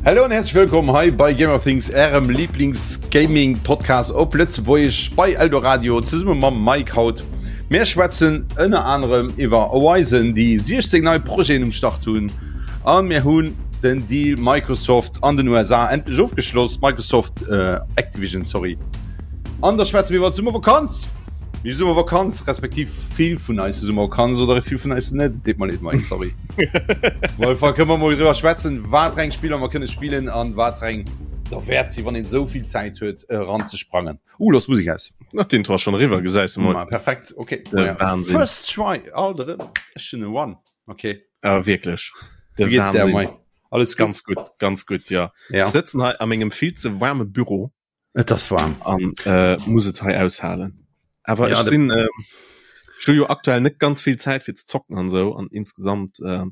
Hallo an herzlich willkommen hei bei Gamer Things, ärem Lieblings-Gaming-Podcast op Lëtzebuergesch bei Eldoradio zesumme mam Mike haut. Mir schwätzen ënner anerem iwwer Horizon, déi 16 nei Projeten um Start hunn a mir hunn den Deal Microsoft an den USA endlech ofgeschloss, Microsoft äh, Activision, sorry. An da schwätzen mir iwwer d'Summervakanz. Mir Summervakanz, respektiv vill vun eis Summervakanz oder vill vun eis net, deet mer leed Mike, sorry. Well fa kënne mer mol driwwer schwätzen, wat reng Spiller mer kënne spillen an wat reng derwäert si, wann een esou vill Zäit huet eranzesprangen. Uh, lass Musik aus. Nach den Intro ass schon eriwwer, gesäis de mol. Ma perfekt, okay. De Wahnsinn. First try, alt erëm. Ech hunn e One, okay. Ah, wierklech. De Wéi geet der, Wahnsinn. Mike? Alles gutt? Ganz gutt, ganz gutt, ja. Ja. Ech sëtzen hei a mengem vill ze waarme Büro. Et ass waarm. An äh, muss et hei aushalen. Awer Ja, ech de- sinn äh, ech hu jo aktuell net ganz vill Zäit fir ze zocken an sou an insgesamt äh,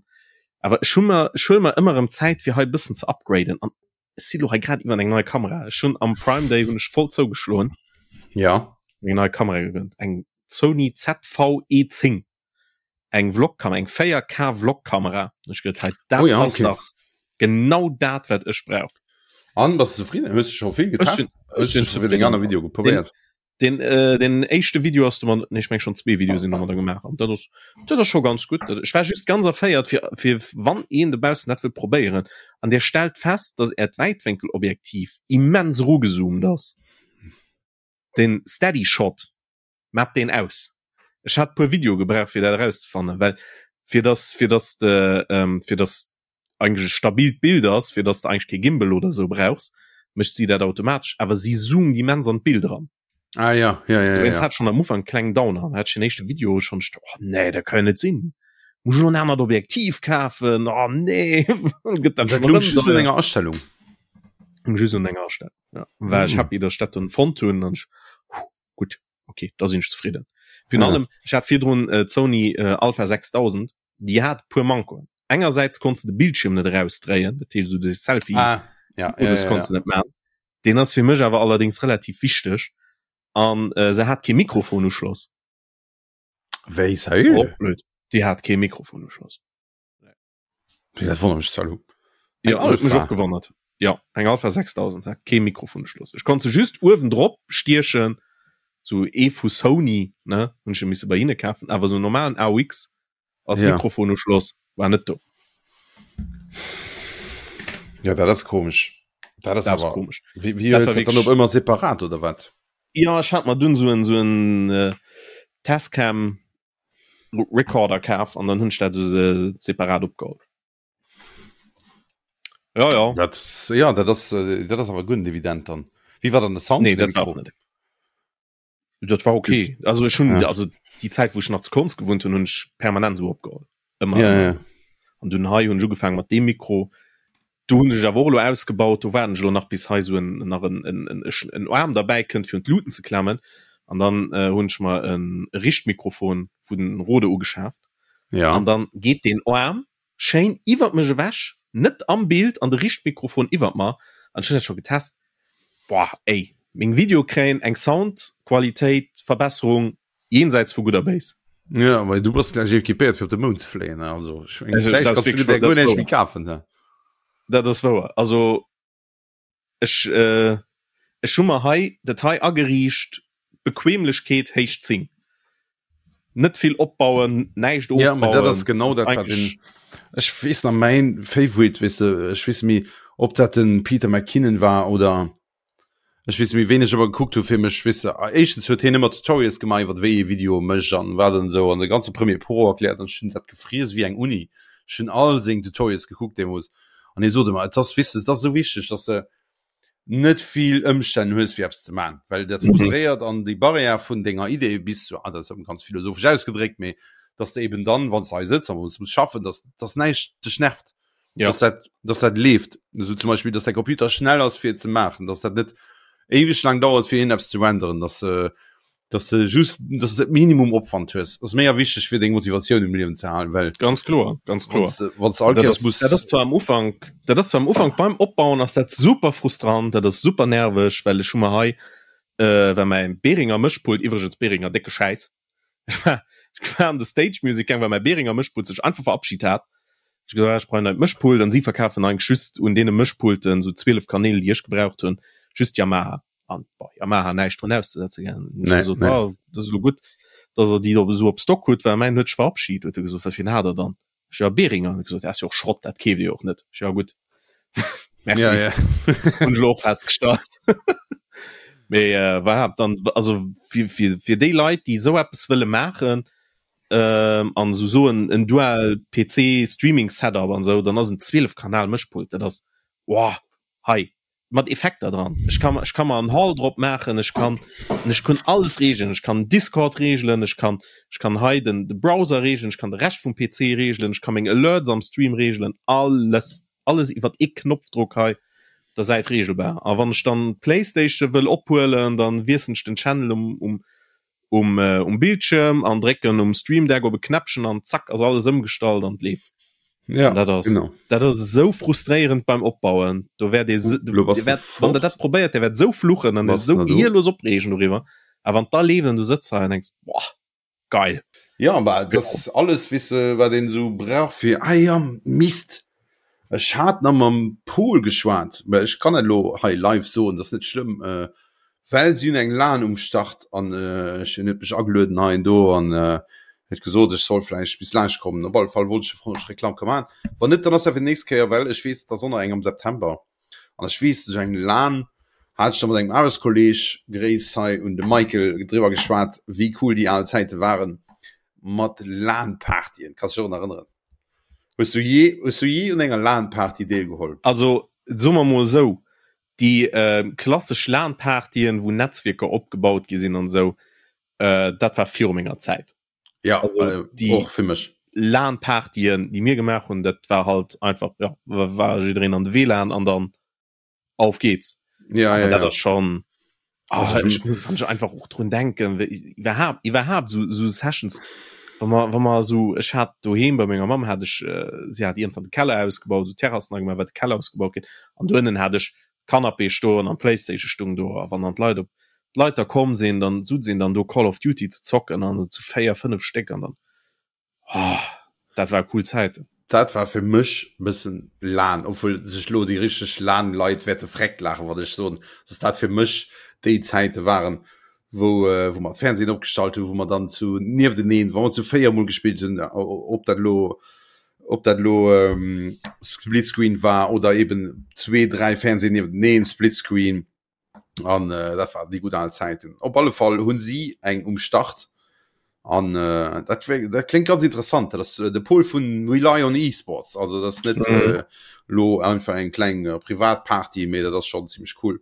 awer ech hu mer ech huele mer ëmmer erëm Zäit fir hei e bëssen ze upgraden an ech si lo hei grad iwwer eng nei Kamera. Ech hunn am Prime Day hunn ech voll zougeschloen. Ja. Eng nei Kamera gegönnt, eng Sony ZV-E10, eng Vlog-Kamera, eng 4K Vlog-Kamera. Ech geduet, hei dat Oh ja, ass okay. dach genau dat wat ech brauch. An bass du zefridden? Hues du scho vill Ech getest? sinn Hues ech du sinn scho vill deng zefridden. aner Videoe Den probéiert? Den äh, den éischte Video ass du man nee, ech meng schon zwee Videoe sinn domadder gemaach an dat ass dat ass scho ganz gutt. Dat ech war just ganz erféiert fir fir wann een dobaussen dat wëll probéieren an dir stellt fest, dass äert Wäitwénkelobjektiv immens erugezoomt ass. Den Steady Shot mat deen aus. Ech hat puer Videoe gebraucht fir dat erauszefannen, well fir dass fir dass de ähm, fir dass eigentlech e stabilt Bild ass, fir dass de eigentlech kee Gimbal oder esou brauchs, mécht si dat automatesch, awer si zoomt immens an d'Bild eran. Ah ja, ja, ja, Dowéinst ja. hat ech schonn am Ufank e klengen Downer an hat ech den éischte Video schonn, ech oh nee, dat ka jo net sinn, muss ech elo en anert Objektiv kafen, oh nee, gëtt dat Dat schonn louch erëm just un deier. enger Astellung. Just un enger Astellung, ja. War ech Mm. happy, dass ech dat dunn fonnt hunn an ech, huh, gutt, okay, da sinn ech zefridden. Virun Ja. allem, ech hat virdrun d'Sony Alpha 6000, déi hat e puer Mankoen. Engersäits konns de de Bildschierm net erausdréien, dat heescht esou de Selfie ah, ja, ja, Modus ja, konns ja. de net maachen. Deen ass fir mech awer allerdéngs relativ wichteg. An äh, se hat kee Mikrofonuschloss. Wéi, sérieux? Och blöd. Déi hat kee Mikrofonuschloss. Wéi, dat wonnert mech zwar elo. Ja, Eng huet mech Alpha? och gewonnert. Ja, eng Alpha 6000 hat kee Mikrofonuschloss. Ech konnt se just uewen drop stiechen, sou ee vu Sony, ne, hunn ech misse bei hinne kafen, awer sou normalen AUX als Ja. Mikrofonuschloss war net do. Ja, dat ass komesch. Dat ass Dat ass awer komesch. Wéi, wéi Dat hues war dat dann wierklech op ëmmer separat oder wat? Ja, ech hat mer dunn sou en sou en äh, Tascam Recorder kaf an dann hunn ech dat sou se separat opgeholl. Ja, ja. Dat ass, ja, dat ass, äh, dat ass awer guer net evident dann. Wéi war dann de Sound Nee, vun dem dat war Mikro? och net. Dat war okay. Also ech hunn Ja. also déi Zäit wou ech nach zu Konz gewunnt hunn, hunn ech permanent sou opgeholl. Ëmmer Ja, ëmmer. ja. An dunn hei hunn ech ugefaangen mat deem Mikro. Do hunn ech awer och elo ausgebaut, do waarden ech elo nach bis hei sou en nach en en en en Aarm derbäi kënnt fir un d'Luuten ze klammen. An dann äh, hunn ech mer en Richtmikrofon vun Rode ugeschaaft. Ja. An dann geet deen Aarm schéin iwwert mech ewech, net am Bild, an de Richtmikrofon iwwert mer. An ech hunn dat scho getest. Boah, ey, meng Videoe kréien eng Soundqualitéit Verbesserung jenseits vu Gutt a Béis. Ja, well du bass gläich equipéiert fir op de Mound ze fléien, also ech mengen, Also, vläicht dat ass kanns du wierklech dir dat guer ass näischt méi wouer. kafen, ne? Dat ass wouer. Also ech äh, ech hu mer hei dat hei ageriicht, Bequemlechkeet héich 10. Net vill opbauen, näischt Ja, mä dat ass ofbauen, genau ass dat, wat den, eigentlech ech weess nach mäin Favorite, weess de, ech weess méi, ob dat den Peter McKinnon war oder ech weess méi, ween ech ëmmer gekuckt hu fir mech, weess de, éischtens huet hien ëmmer Tutorials gemaach iwwer wéi ee Video mécht an wat an esou an de ganze Premiere Pro erkläert an ech hunn dat gefriess wéi eng Uni. Ech hunn all seng Tutorials gekuckt deemools an hie sot ëmmer, et ass, weess de, et ass esou wichteg, dass de net vill Ëmstänn hues fir eppes ze man, well dat mhm. frustréiert an déi Barrière vun denger Idee bis ah, dat ass ganz philosophesch ausgedréckt, mee dass de eben dann wann du hei sëtz an muss schaffen, dass dass näischt dech nervt. Ja. Dass dat, dass dat leeft. So zum Beispiel, dass der Computer schnell ass fir ze maachen, dass dat net éiweg lang dauert fir een eppes ze renderen, dass äh, dass de just dass de Minimum Opwand hues ass méi wichteg fir deng Motivatioun im Liewen ze halen well ganz kloer ganz kloer wann du all dat Kéiers ass, muss dat ass zwar am Ufank dat ass zwar am Ufank beim Opbauen ass dat super frustrant dat ass super nerveg well ech hu mer hei äh, well mäin Behringer Mëschpult iwwregens Behringer décke Schäiss ech war ech war an de Stage Music gaang well mäi Behringer Mëschpult sech einfach verabschit hat. Ech gesot, ah, ech brauch en neit Mëschpult an si verkafen eigentlech just un deene Mëschpulten, sou 12 Kanäl, déi ech gebraucht hunn, just Yamaha. An bon, Yamaha näischt drun auszesetzen, gell. Hunn ech Nee, gesot, nee. ah, dat ass elo gutt, dass der déi do esou op Stock hutt, well mäin huet sech verabschid. Huet e gesot, wat fir een hat der dann? Ech, ja, Behringer. Huet e gesot, dat ass jo och Schrott, dat keeft Dir jo och net. Ech, ja gutt, merci. Ja, ja. Hunn ech elo och festgestallt. Mee äh, voilà, dann, also fir, fir, fir déi Leit, déi esou eppes wëlle maachen, ähm, an esou soen en Dual PC Streaming Setup an esou, dann ass en 12 Kanal Mëschpult, dat ass wow, hei mat Effekter dran. Ech kann ech kann mer en Hall drop maachen, ech kann ech kann alles regeln, ech kann Discord regeln, ech kann ech kann hei den de Browser regeln, ech kann de Rescht vum PC regeln, ech kann meng Alerts am Stream regeln, alles alles iwwert ee Knopfdruck hei der Säit regelbar. A wann ech dann d'Playstation wëll ophuelen, dann wiessen ech den Channel um um um um Bildschirm an drécken um Stream Deck op e Knäppchen an zack ass alles ëmgestallt an et leeft. Ja, dat ass genau. dat ass esou frustréierend beim Opbauen. Do wäert ee Uh, lo bass Dir du wäert, wann der fort. dat probéiert, der wäert esou fluchen an Bass esou na do? gehirlos opreegen doriwwer. A wann da leeft an du sëtz hei an denks, boah, geil. Ja, bah, dat ass alles, weess de, wat een esou brauch fir, ah ja, Mist, ech hat nach mam Pol geschwat, mä ech kann et elo hei live soen, dat ass net schlëmm, well si hunn eng Lan um Start an ech, en huet mech agelueden hei an do an huet gesot, ech soll vläicht bis laanscht kommen. Op alle Fall wollt ech froen, ob ech Reklamm ka maachen. Wann net, dann ass dat fir d'nächst Kéier, well ech weess, et ass och nach eng am September. An ech weess, sou eng Lan hat ech da mat engem Aarbechtskolleg, Gréiss hei un de Michael, driwwer geschwat, wéi cool déi al Zäite waren mat LAN-Partyen. Kanns dech och nach erënneren? Hues du jee, hues du jee un enger LAN-Party deelgeholl? Also, soe mer mol esou, déi klassesch LAN-Partyen, wou Netzwierker opgebaut gi sinn an esou, dat war viru menger Zäit. Ja, also, äh, die och fir mech. LAN-Partyen, déi mir gemaach hunn, dat war halt einfach, ja, war jiddereen an de WLAN an dann auf geht's. Ja, Aber ja, dat ja. ass schon ah, Also für ich muss wann ich einfach och drun denken wéi- iwwerhaapt iwwerhaapt so, so Sessions wann man wann man so ech hat doheem bei menger Mamm hat ech äh, sie hat irgendwann de Keller ausgebaut so Terrassen gemacht wat de Keller ausgebaut ginn an do ënnen hat ech Canapé stoen an Playstation stung do a wann dann d'Leit op d'Leit da komm sinn, dann sutz een dann do Call of Duty ze zocken an zu 4, 5 Stéck an dann oh, dat war cool Zäiten. Dat war fir mech bëssen lan, obwuel sech lo déi richteg LAN-Leit wäerte vreckt laachen, wann ech soen, dass dat fir mech déi Zäite waren, wou wou mer Fernsehen opgestallt hunn, wou mer dann zu niefteneen, wa mer zu 4 mol gespillt hunn, ob dat lo ob dat lo ähm, Splitscreen war oder eben zwee, dräi Fernsehen niefteneen, Splitscreen an äh, dat war déi gutt al Zäiten. Op alle Fall hunn si eng um Start an äh, dat, wär, dat klingt ganz interessant. Dat ass äh, de Pol vun Rely on Esports, also dat ass net mhm. äh, lo einfach eng kleng äh, Privatparty, mee dat ass schon ziemlich cool.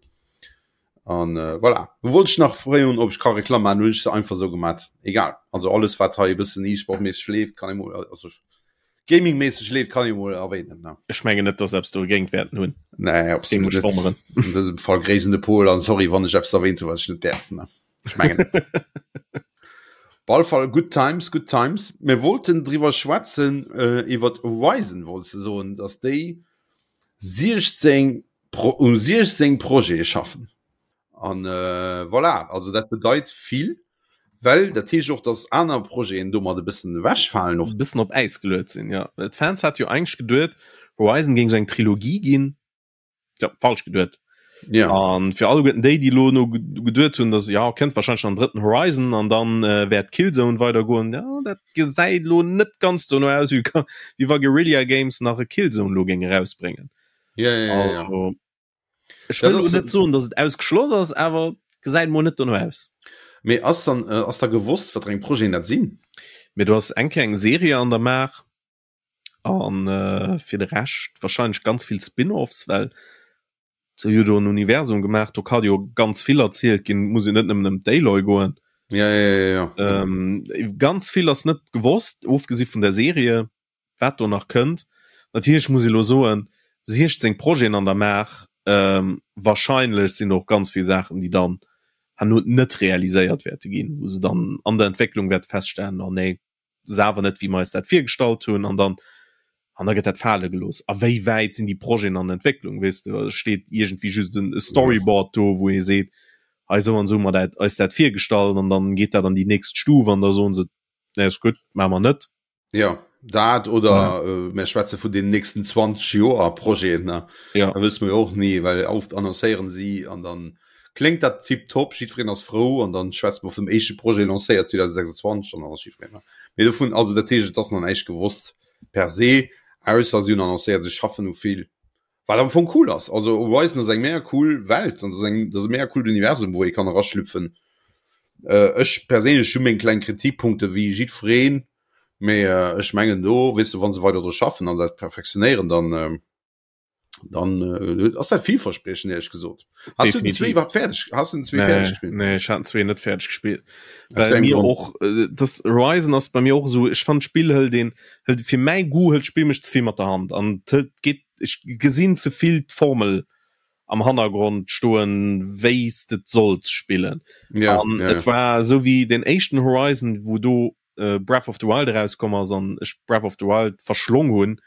An äh, voilà. Wollt ich nach froen, ob ich ka Reklam machen, hunn ech se einfach so gemacht. Egal. Also alles wat hei e bëssen E-Sport-mäßig leeft, kann ich mol also Gaming-mäßig leeft, kann ich mol erwähnen. Ne? Ech mengen net, dass eppes dogéint wäerten hunn. Nee, absolut Géing mech net. wonneren. An dësem Fall Gréiss un de Pol an sorry, wann ech eppes erwähnt hunn, wat ech net däerf. Ne? Ech mengen net. Op alle Fall good times, good times. Mir wollten driwwer schwätzen, äh, iwwer Horizon, wolltest du soen, dass déi 16 Pro, um 16 Projete schaffen. An äh, voilà, also dat bedeit vill, well dat heescht och, dass aner Projeten domat e bëssen ewechfalen oft. E bëssen op Äis geluet sinn, jo. D'Fans hate jo eigentlech geduet, Horizon géing sou eng Trilogie ginn. Tja, falsch geduet. Ja. An fir alleguerten déi, déi elo no geduet hunn, dass ja kënnt wahrscheinlech nach en drëtten Horizon an dann äh, wäert Killzone weidergoen, ja, dat gesäit elo net ganz dono aus, wéi wéi wa Guerrilla Games nach e Killzone elo géing erausbréngen. Ja, ja, ja, ja. Also, Ech wëll elo net soen, datt et ausgeschloss ass, awer gesäit mol net dono aus. Mee ass dann äh, ass da gewosst, wat fir eng Projeten dat sinn? Mee du has eng Kéier eng Serie an der Maach an äh, fir de Rescht wahrscheinlech ganz vill Spin-offs, well se hu jo do en Universum gemaach, do ka jo ganz vill erzielt ginn, muss jo net nëmmen ëm d'Aloy goen. Ja, ja, ja, ja. Ähm, ganz vill ass net gewosst, ofgesi vun der Serie. wat do nach kënnt. Natierlech muss ee lo soen, 16 Projeten an der Maach, wahrscheinlech sinn do och ganz vill Saachen, déi dann herno net realiséiert wäerte ginn, wou se dann an der Entwécklung wäerte feststellen, oh nee, ass awer net wéi mer eis dat virgestallt hunn an dann an da gëtt dat fale gelooss. A wéi wäit sinn déi Projeten an der Entwécklung, weess de? Also steet iergendwéi just en Storyboard do, wou ee seet, hei esou an esou hu mer dat eis dat virgestallt an dann geet dat an déi nächst Stuf an da soen se, nee ass gutt, maache mer net. Ja. dat oder ja. äh, mir schwätze vun den nächsten 20 Joer Projeten ne ja. da wësse mir och nie well oft annoncéieren si an dann klingt dat tiptop jiddwereen ass frou an dann schwätzt man vum éischte Projet lancéiert 2026 an dann ass jiddwereen mee dovun also dat heescht et ass nach näischt gewosst per se ausser si hunn annoncéiert si schaffen u vill wat am Fong cool ass also Horizon ass eng mega cool Welt an dat ass eng dat ass e mega coolt Universum wou ee kann eraschlüpfen äh, ech perséinlech hu meng kleng Kritikpunkte wéi jiddwereen mee äh, ech mengen do weess de wa se weider dru schaffen an dat perfektionéieren dann äh, dann äh, ass dat villverspriechend éierlech gesot. Hast du den zwee iwwerhaapt fäerdeg hast du den zwee nee, fäerdeg gespillt? Nee, ech hat den zwee net fäerdeg gespillt. Aus Well wéi engem mir Grond? och äh, das Horizon ass bei mir och esou ech fand d'Spill hëlt een hëlt fir mäi Goût hëlt d'Spill mech ze vill mat der Hand an hëlt geet ech gesinn ze vill d'Formel am Hannergrond stoen wéi s de et solls spillen. Ja, An ja, et ja. war esou wéi den éischten Horizon wou do äh, Breath of the Wild erauskomm ass an ech Breath of the Wild verschlong hunn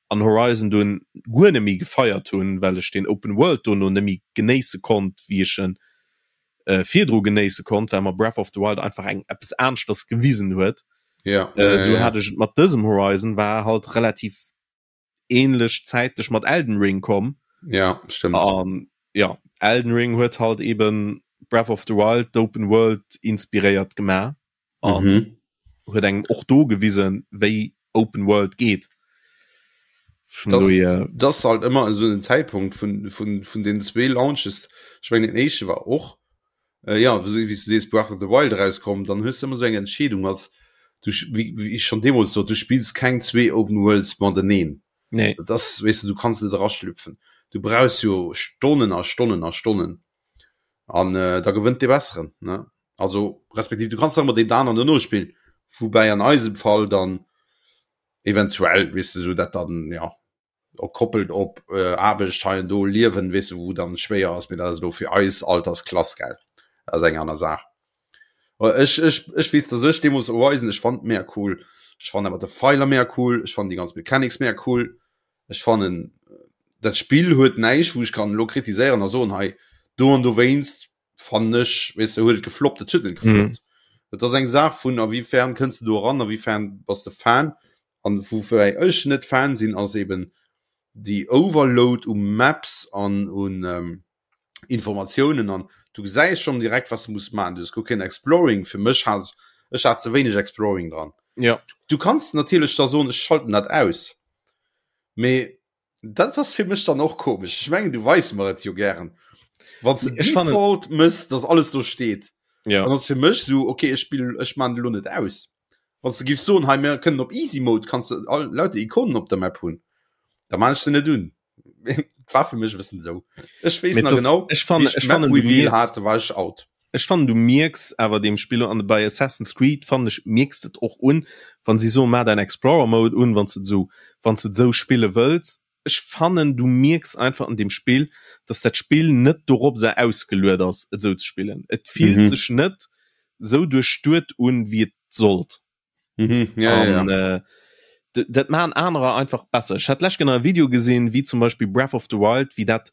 an Horizon dunn guer net méi gefeiert hunn, well ech den Open World dono net méi genéisse konnt, wéi ech en äh, virdru genéisse konnt, well mer Breath of the Wild einfach eng eppes aneschters gewisen huet. Ja, Äh, ja, sou ja. hat ech et mat dësem Horizon, war halt relativ ähnlech zäitlech mat Elden Ring komm. Ja, stimmt. An ja, Elden Ring huet halt eben Breath of the Wild, d'Open World inspiréiert gemaach an Mhm. huet engem och do gewisen, wéi Open World geet. Vun Das, dohier, das halt ëmmer esou den Zäitpunkt vun, vun, vun den zwee Launches. Ech mengen den éischte war och äh, ja, wéi wéi s du sees Breath of the Wild erauskomm, dann hues du ëmmer esou eng Entscheedung als du wéi, wéi ech schon deemools sot, du spills keng zwee Open Worlds mateneen. nee. Dat ass, weess du, du kanns net eraschlüpfen. Du brauchs jo Stonnen a Stonnen a Stonnen an äh, da gewënnt dee Besseren, ne? Also respektiv du kanns nach ëmmer deen aneren dono spillen, woubäi an eisem Fall dann eventuell, weess du, sou dat dann, ja, och koppelt op äh, Aarbecht hei an do, Liewen, weess du, wou dann schwéier ass, mee dat ass elo fir eis Altersklass, gell, dat ass eng aner Saach. Ech, ech, ech weess, dass ech deemools Horizon, ech fand mega cool, ech fand awer de Pfeiler mega cool, ech fand déi ganz Mechanics mega cool, ech fannen dat Spill huet näischt, wou ech kann elo kritiséieren a soen, hei do an dowéinst fannen ech, weess de, huet et gefloppt, et huet net gefloppt. Et ass eng Saach vun a wéi fern kënns de do eran, a wéi fern bass de Fan. An woufir ech net Fan sinn, ass eben déi Overload u Maps an un Informatiounen an du gesäis schonn direkt, wat s de muss maachen. Du hues guer keen Exploring. Fir mech hat ech hat ze wéineg Exploring dran. Ja. Du kanns natierlech da soen, ech schalten dat aus. Mee dat ass fir mech dann och komesch. Ech mengen, du weis mer et jo gären. Wann s de Ech fannen- Default mëss, dass alles do steet, Ja. dann ass fir mech sou, okay, ech spill, ech maan elo net aus. Wann s de giffs soen, hei mir kënnen op Easy Mode, kanns de all lauter Ikonen op der Map hunn, da maan ech se net un. War fir mech e bëssen esou. Ech weess Mee nach das, genau, ech fannen, wéi ech ech d'Map fannen, du Reveal mierks, hat, da war ech out. ech fannen, du mierks awer deem Spill an bei Assassin's Creed fannen ech mierks de et och un, wann si soen, maach däin Explorer Mode un, wann s de et esou, wann s de et esou spille wëlls. Ech fannen, du mierks einfach an deem Spill, dass dat Spill net doropser ausgeluet ass, et esou ze spillen. Et fillt Mhm. sech net esou duerchduet un, wéi et sollt. Mhm, ja, ja, An ja. äh, dat maachen anerer einfach besser. Ech hat d'lescht Kéier nach e Video gesinn, wéi zum Beispill Breath of the Wild, wéi dat,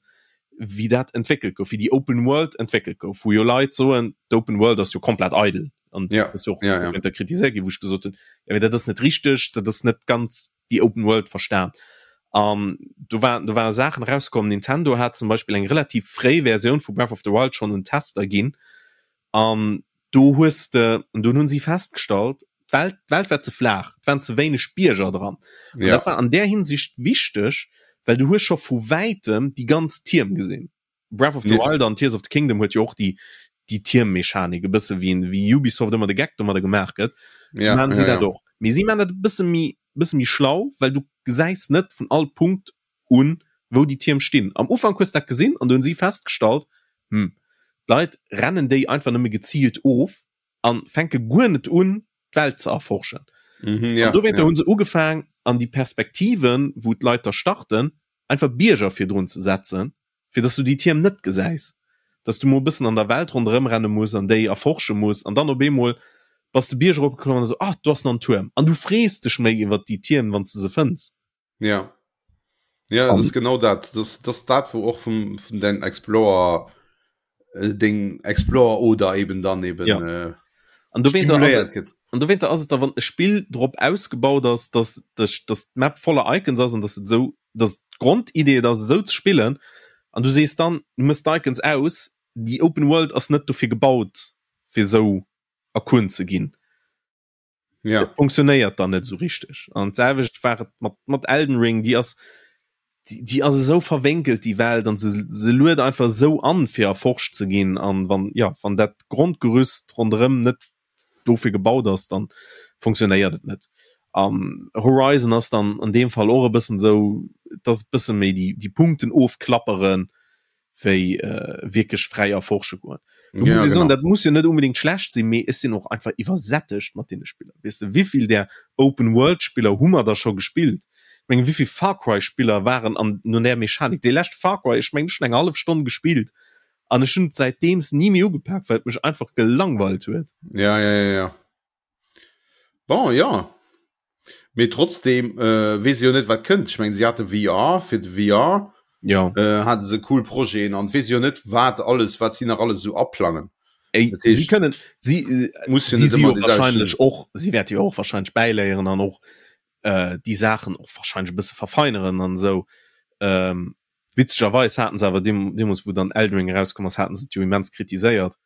wéi dat entwéckelt gouf, wéi déi Open World entwéckelt gouf, wou jo Leit soen, d'Open World ass jo komplett eidel. An Ja, dat ass jo och ja, ja. dowéinter kritiséiert ginn, wou ech gesot hunn, jo mee dat ass net richteg, dat ass net ganz déi Open World verstan. An do war, do ware Saachen erauskomm, Nintendo hat zum Beispill eng relativ fréi Versioun vu Breath of the Wild schonn un Tester ginn, An do hues de, an dunn hunn si festgestallt, d'Welt, d'Welt war ze flaach, et waren ze wéineg Bierger dran. An Ja. dat war an där Hinsicht wichteg, well du hues scho vu wäitem déi ganz Tierm gesinn. Breath of the Ja. Wild an Tears of the Kingdom huet jo och déi, déi Tiermmechanik, e bësse wéi, wéi Ubisoft ëmmer de Geck domadder gemaach gëtt, sou Ja, maachen si ja, dat ja. och. Mee si maachen dat e bësse méi, bësse méi schlau, well du gesäis net vun all Punkt un, wou déi Tierm stinn. Am Ufank hues de dat gesinn an do hunn si festgestallt, hm, d'Leit rennen déi einfach nëmme geziilt of a fänke guer net un, d'Welt ze erforschen. Mhm, ja, An dowéinter ja. hu se ugefaang, an déi Perspektiven, wou d'Leit da starten, einfach Bierger virdrun ze setzen, fir dass du déi Tierm net gesäis, dass du mol e bëssen an der Welt ronderëm renne muss an déi erforsche muss an dann op eemol bass de Bierg eropgeklommen an esou, ah, do ass nach en Tuerm. An du frees dech méi iwwert déi Tierm, wann s de se fënns. Ja. Ja, das ist genau dat. Das, das dat, wo och vum, vun den Explorer äh, Ding Explorer oder eben dann eben Ja. äh, An stimuléiert gëtt. An dowéinter ass et da wann e Spill drop ausgebaut ass, dass dech dass d'Map voller Icons ass an dass et esou dass d'Grondidee et ass esou ze spillen an du sees dann du mëss d'Icons aus, déi Open World ass net dofir gebaut fir esou erkunt ze ginn. Ja. Et funktionéiert dann net esou richteg. An d'selwecht war et mat mat Elden Ring, déi ass déi, déi ass esou verwénkelt déi Welt an se se luet einfach esou an fir erforscht ze ginn an wann ja wann dat Grondgerüst ronderëm net dofir gebaut ass, dann funktionéiert et net. An Horizon ass dann an deem Fall och e bëssen esou, et ass e bësse méi déi déi Punkten ofklapperen, wéi äh, wierklech fräi erforsche goen. Du Ja, muss ich soen, genau. dat muss jo net unbedingt schlecht sinn, mee ech sinn och einfach iwwersättegt mat deene Spiller. Weess de, wéivill där Open-World-Spiller hu mer da scho gespillt? Ech mengen, wéivill Far Cry-Spiller waren an no där Mechanik? Dee leschte Far Cry, ech mengen, ech hunn eng hallef Stonn gespillt an ech hunn et säitdeems ni méi ugepak, well et mech einfach gelangweilt huet. Ja, ja, ja, ja. Bon, ja. Mee trotzdem äh, weess jo net wat kënnt. Ech mengen, si hate VR fir de VR Ja. äh, hate se cool Projeten an weess jo net wat alles wat si nach alles esou aplangen. Ey, Dat heescht, si kënnen si äh, muss jo si net si ëmmer jo déi selwecht wahrscheinlech och si wäerte jo och wahrscheinlech bäiléieren an och äh, déi Saachen och wahrscheinlech e bësse verfeineren an esou. Ähm, witzegerweis haten se awer deem, deemools wou dann Elden Ring erauskomm ass, haten se et jo immens kritiséiert.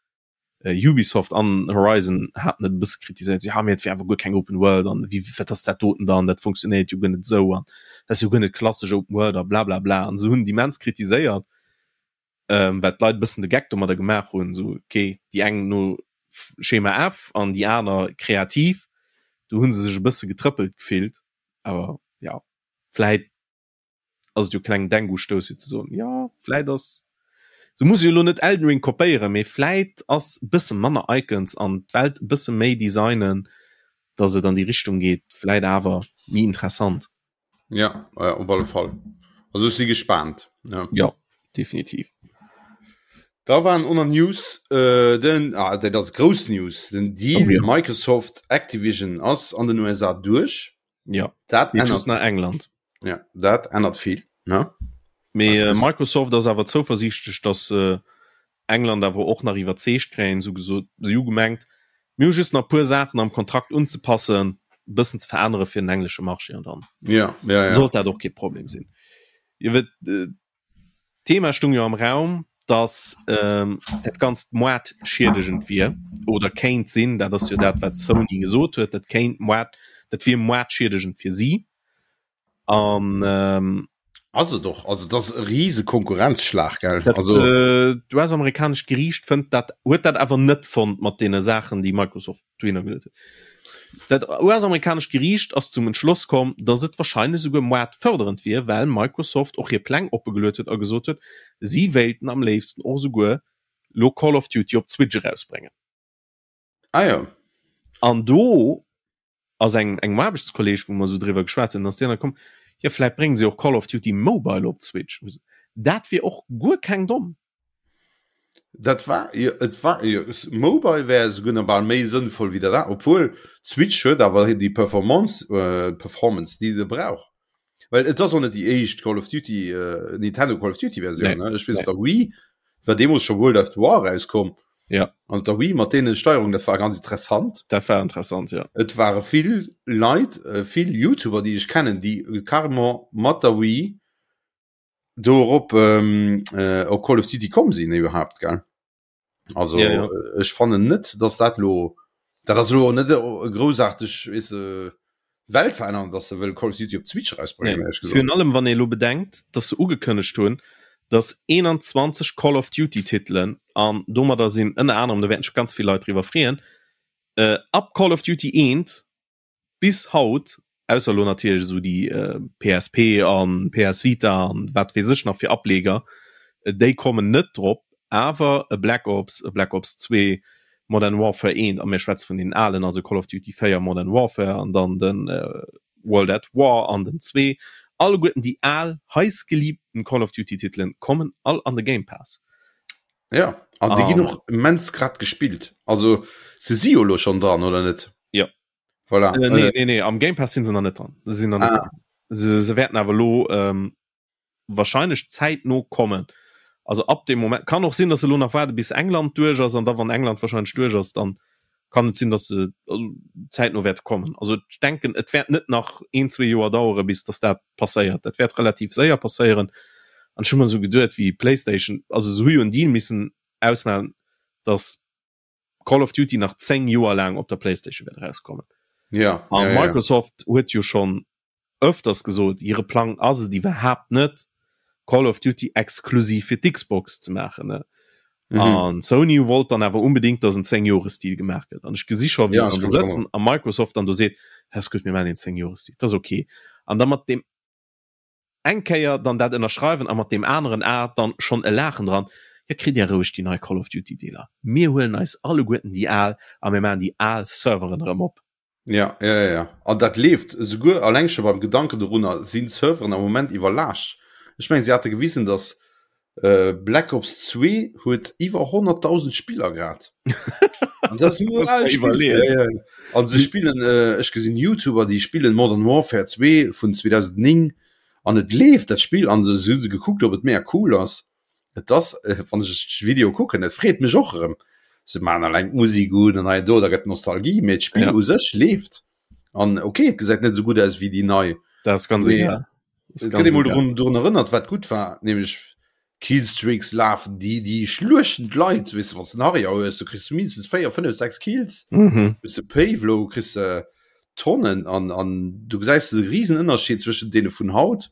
Ubisoft an Horizon haten et e bësse kritiséiert, so, ja mee et wier awer guer keng Open World an wéi wat ass dat doten dann, dat funktionéiert jo guer net esou an dat ass jo guer net klassesch Open World a blablabla an se hunn et immens kritiséiert, ähm, well d'Leit e bëssen de Geck domadder gemaach hunn, esou ok, déi eng no Schema F an déi aner kreativ, do hu se sech e bësse getrëppelt gefillt, awer ja vläit ass et jo klengen Denkustouss fir ze soen, jo vläit ass, se muss jo elo net Elden Ring kopéieren, mee vläit ass e bësse manner Icons an d'Welt e bësse méi designen, datt et an déi Richtung geet, vläit awer méi interessant. Ja, ja op alle Fall. Also ech si gespaant. Ja, ja definitiv. Da waren oner News äh, den ah, dat ass grouss News, den Deal oh, ja. Microsoft Activision ass an den USA duerch. Ja dat ännert nach England. Ja dat ännert vill ne? Mee äh, Microsoft ass awer zouversiichtlech, datt äh, England awer och nach iwwerzeegt kréien, sou gesot si hu gemengt, mir hu just nach puer Saachen am Kontrakt unzepassen, e bëssen ze verännere fir den englesche Marché an dann ja, ja, ja. sollt dat och kee Problem sinn. Iwwer äh, D'Thema stung jo am Raum, datt dat Ganzt moartschiedegend wier oder kéint sinn. Dat ass jo dat, wat Sony gesot huet, dat kéint moart, dat wier moartschiedegend fir si. An. Ass et och. Also et ass e rise Konkurrenzschlag, gell? Dat, also d'US-amerikanescht Geriicht fënnt dat, huet dat awer net fonnt mat deene Saachen, déi Microsoft dohinner geluet huet. Dat US-amerikanescht Geriicht ass zum Entschloss komm, datt et warscheinlech esouguer moartfërderend wier, well Microsoft och hir Pläng oppegeluet huet a gesot huet, si wéilten am léifsten och esouguer lo Call of Duty op d'Switch erausbréngen. Ah jo. An do ass eng engem Aarbechtskolleeg, wou mer esou driwwer geschwat hunn, ass deen da komm, jo vläit brénge se och Call of Duty Mobile op d'Switch. Dat wier och guer keng domm. Dat war jo, et war jo, Mobile wär esouguer nach bal méi sënnvoll wéi dat anert, obwuel d'Switch huet awer déi Performance, Performance déi se brauch. Well et ass och net déi éischt Call of Duty, Nintendo Call of Duty Versioun, ne? Ech weess op der Wii war deemools scho World at War erauskomm. Ja. An op der Wii mat deene Steierungen, dat war ganz interessant. Dat war interessant, ja. Et ware vill Leit, vill YouTuber déi ech kennen, déi carrément mat der Wii do erop ähm, äh, op Call of Duty komm sinn iwwerhaapt gell also Ja, ja. äh, ech fannen net dass dat lo dat ass lo net e groussaarteg weess de Welt verännern dass se wëll Call of Duty op d'Switch erausbréngen Nee. ehrlech gesot. Virun allem wann ee lo bedenkt, dass se ugekënnegt hunn, dass 21 Call of Duty Titelen an domadder sinn ënner anerem, do wäerten sech ganz vill Leit driwwer freeën, äh, ab Call of Duty 1 bis haut, ausser elo natierlech esou déi PSP an PS Vita an wat weess ech nach fir Ableger, déi kommen net drop, awer e Black Ops, e Black Ops 2, Modern Warfare 1, a mir schwätze vun deenen alen, also Call of Duty 4, Modern Warfare an dann de World at War an den 2, alleguerten déi al heißgeliebten Call of Duty Titelen kommen all an de Game Pass. Ja, an déi ginn och immens grad gespillt. Also se si jo elo schonn dran, oder net? Ja. Voilà. Äh, nee, nee, nee, am Game Pass sinn se nach net dran. Se sinn nach net ah. dran. Se, se wäerten awer lo ähm, wahrscheinlech zäitno kommen. Also ab dem Moment kann och sinn, dass se lo nach waarde bis England duerch ass an da wann England wahrscheinlech duerch ass, dann. Kann et sinn, dass se also zäitno wäerte kommen. Also ech denken, et wäert net nach een, zwee Joer dauere bis dass dat passéiert. Dat wäert relativ séier passéieren. An ech hu mer esou geduet, wéi PlayStation, also se hu jo en Deal missen ausmaachen, dass Call of Duty nach 10 Joer laang op der PlayStation wäert erauskommen. Ja, An ja, ja. Microsoft huet jo schonn ëfters gesot, hire Plang ass et iwwerhaapt net, Call of Duty exklusiv fir d'Xbox ze maachen. Ne? Mhm. An Sony wollt dann awer unbedingt, dass en 10 Jores-Deal gemaach gëtt. An ech gesi scho, wéi Ja, se ech dann do kann se sëtzen a Microsoft dann do seet, ass gutt, mir maachen een 10 Jores-Deal, dat ass okay. An da mat deem eng Kéier dann dat ënnerschreiwen a mat deem aneren A dann schonn e Laachen dran, jo kritt Dir roueg déi nei Call of Duty Dealer, mir huelen eis alleguerten déi al a mir maachen déi al Serveren erëm op. Ja, ja, ja, ja. An dat leeft esouguer alleng scho beim Gedanken dorunner sinn d'Serveren am Moment iwwerlaascht. Ech mengen, si hate gewisen, datt Black Ops 2 huet iwwer 100.000 Spiller grad. An dat ass nur Muss al Spill. iwwerleeën. Ja, ja. An se spillen, äh, ech gesinn YouTuber, déi spillen Modern Warfare 2 vun 2009 an et leeft dat Spill an se hu gekuckt, ob et mega cool ass. Et ass, äh, wann ech de Video kucken, et freet mech och erëm. Se maachen alleng d'Musek un an hei an do, da gëtt Nostalgie, mee d'Spill Ja. u sech leeft. An okay, et gesäit net esou gutt aus wéi déi nei. Dat ass ganz Mee egal. Das et ganz gëtt ee mol egal. drun, drun erënnert, wat gutt war, nämlech Killstreaks lafen, déi, déi schluechten d'Leit, weess de, wann s de en Harrier hues, du kriss mindestens 4, 5, 6 Kills. Mhm. Hues de Payvlo, kriss de Tonnen an, an du gesäis de risen Ënnerscheed zwëschen deene vun haut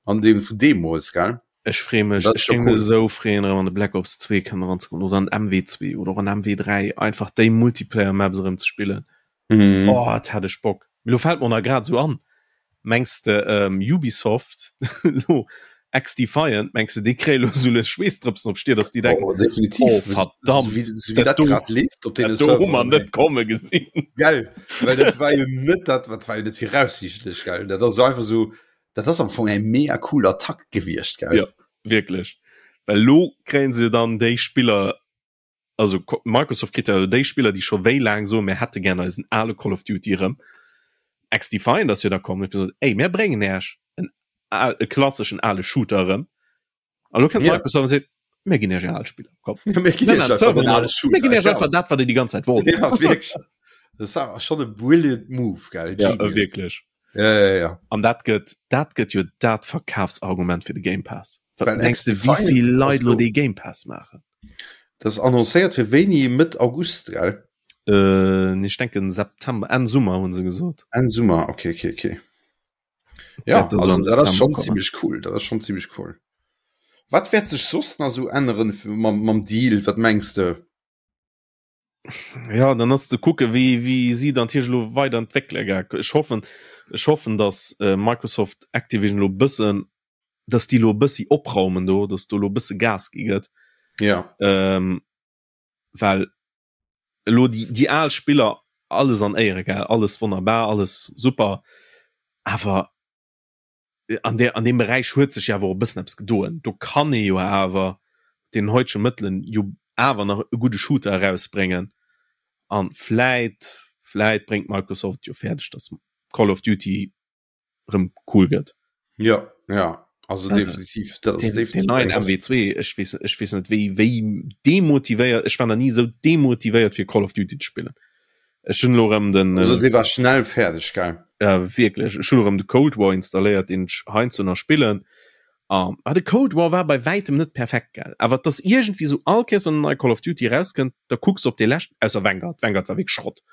an deem vun deemools, gell? Ech freeë mech, Dat ech ass scho géing mech cool. esou freeën erëm an de Black Ops 2 kënnen eranzekommen oder an MW2 oder och an MW3, einfach déi Multiplayer Maps erëm ze spillen. Mhm. Oh, et hätt ech Bock. Mee lo fält mer och nach grad esou an, mengs de ähm, Ubisoft lo XDefiant, mengs de déi kréie lo esou lues Schweessdrëpsen op d'Stier, dass déi denken, Oh, definitiv. oh verdammt, Sou wéi, sou wéi dat dat do, grad leeft op deene dat do hu mer Serveren, net ey. komme gesinn. Gell, well dat war jo net dat, wat war jo net viraussiichtlech, gell? Dat ass einfach sou, dat ass am Fong eng mega cool Attack gewiescht, gell? Ja, wierklech. Well lo kréien se dann déi Spiller, also Microsoft kritt ja déi Spiller, déi scho wéi laang soen, mir hätte gär eisen ale Call of Duty erëm. XDefiant ass jo da komm, huet gesot, ey, mir bréngen Äech en al, e klasseschen ale Shooter erëm. A lo kënnt Ja. Microsoft an seet, mir ginn Iech är al Spiller, komm. Ja, mir ginn Mir Iech maachen einfach Server den nei. ale Shooter, Mir ginn Iech genau. einfach dat, wat Dir déi ganz Zäit wollt. Ja, wierklech. Dat war schonn e brilliant Move, gell? Ja, Genius. wierklech. Ja, ja, ja. An dat gëtt, dat gëtt jo dat Verkafsargument fir de Game Pass. Wat Well mengs de, wéi XDefiant vill ass Leit lo lo- dee Game Pass maachen? Dat ass annoncéiert fir wéini? Mëtt August, gell? Äh, nee, ech denken September, Enn Summer hunn se gesot. Enn Summer, okay, okay, okay. Ja, Wäert also also am dat ass September schon kommen. ziemlech cool, dat ass schon ziemlech cool. Wat wäert sech soss nach sou änneren mam, mam Deal, wat mengs de? Ja, dann ass ze kucke wéi wéi si dann natierlech elo weider entwéckele gell. Ech hoffen, ech hoffen, datt äh, Microsoft Activision elo bëssen, datt déi elo e bëssi opraumen do, datt do elo e bësse Gas gi gëtt. Ja. Ähm, well elo déi déi al Spiller alles an Éiere gell, alles wonnerbar, alles super, awer an der an deem Beräich huet sech jo awer och e bëssen eppes gedoen. Do kann ee jo awer mat deenen heutege Mëttelen jo awer nach e gudde Shooter erausbréngen an vläit vläit bréngt Microsoft et jo fäerdeg, datt Call of Duty rëm cool gëtt. Ja, ja, also definitiv dat ass Den, den definitiv neien eng MW2, ech weess ech weess net wéi wéi demotivéiert, ech war nach ni esou demotivéiert fir Call of Duty ze spillen. Ech hunn elo rëm den Also dee war schnell fäerdeg, gell? Ja wierklech, ech hunn elo rëm de Cold War installéiert, deen ech heiansdo nach spillen. An ah, de Cold War war bei wäitem net perfekt, gell? Awer et ass iergendwéi esou, all Kéiers wann en neie Call of Duty erauskënnt, da kucks de op dee leschten, ausser Vanguard, Vanguard war wierklech Schrott.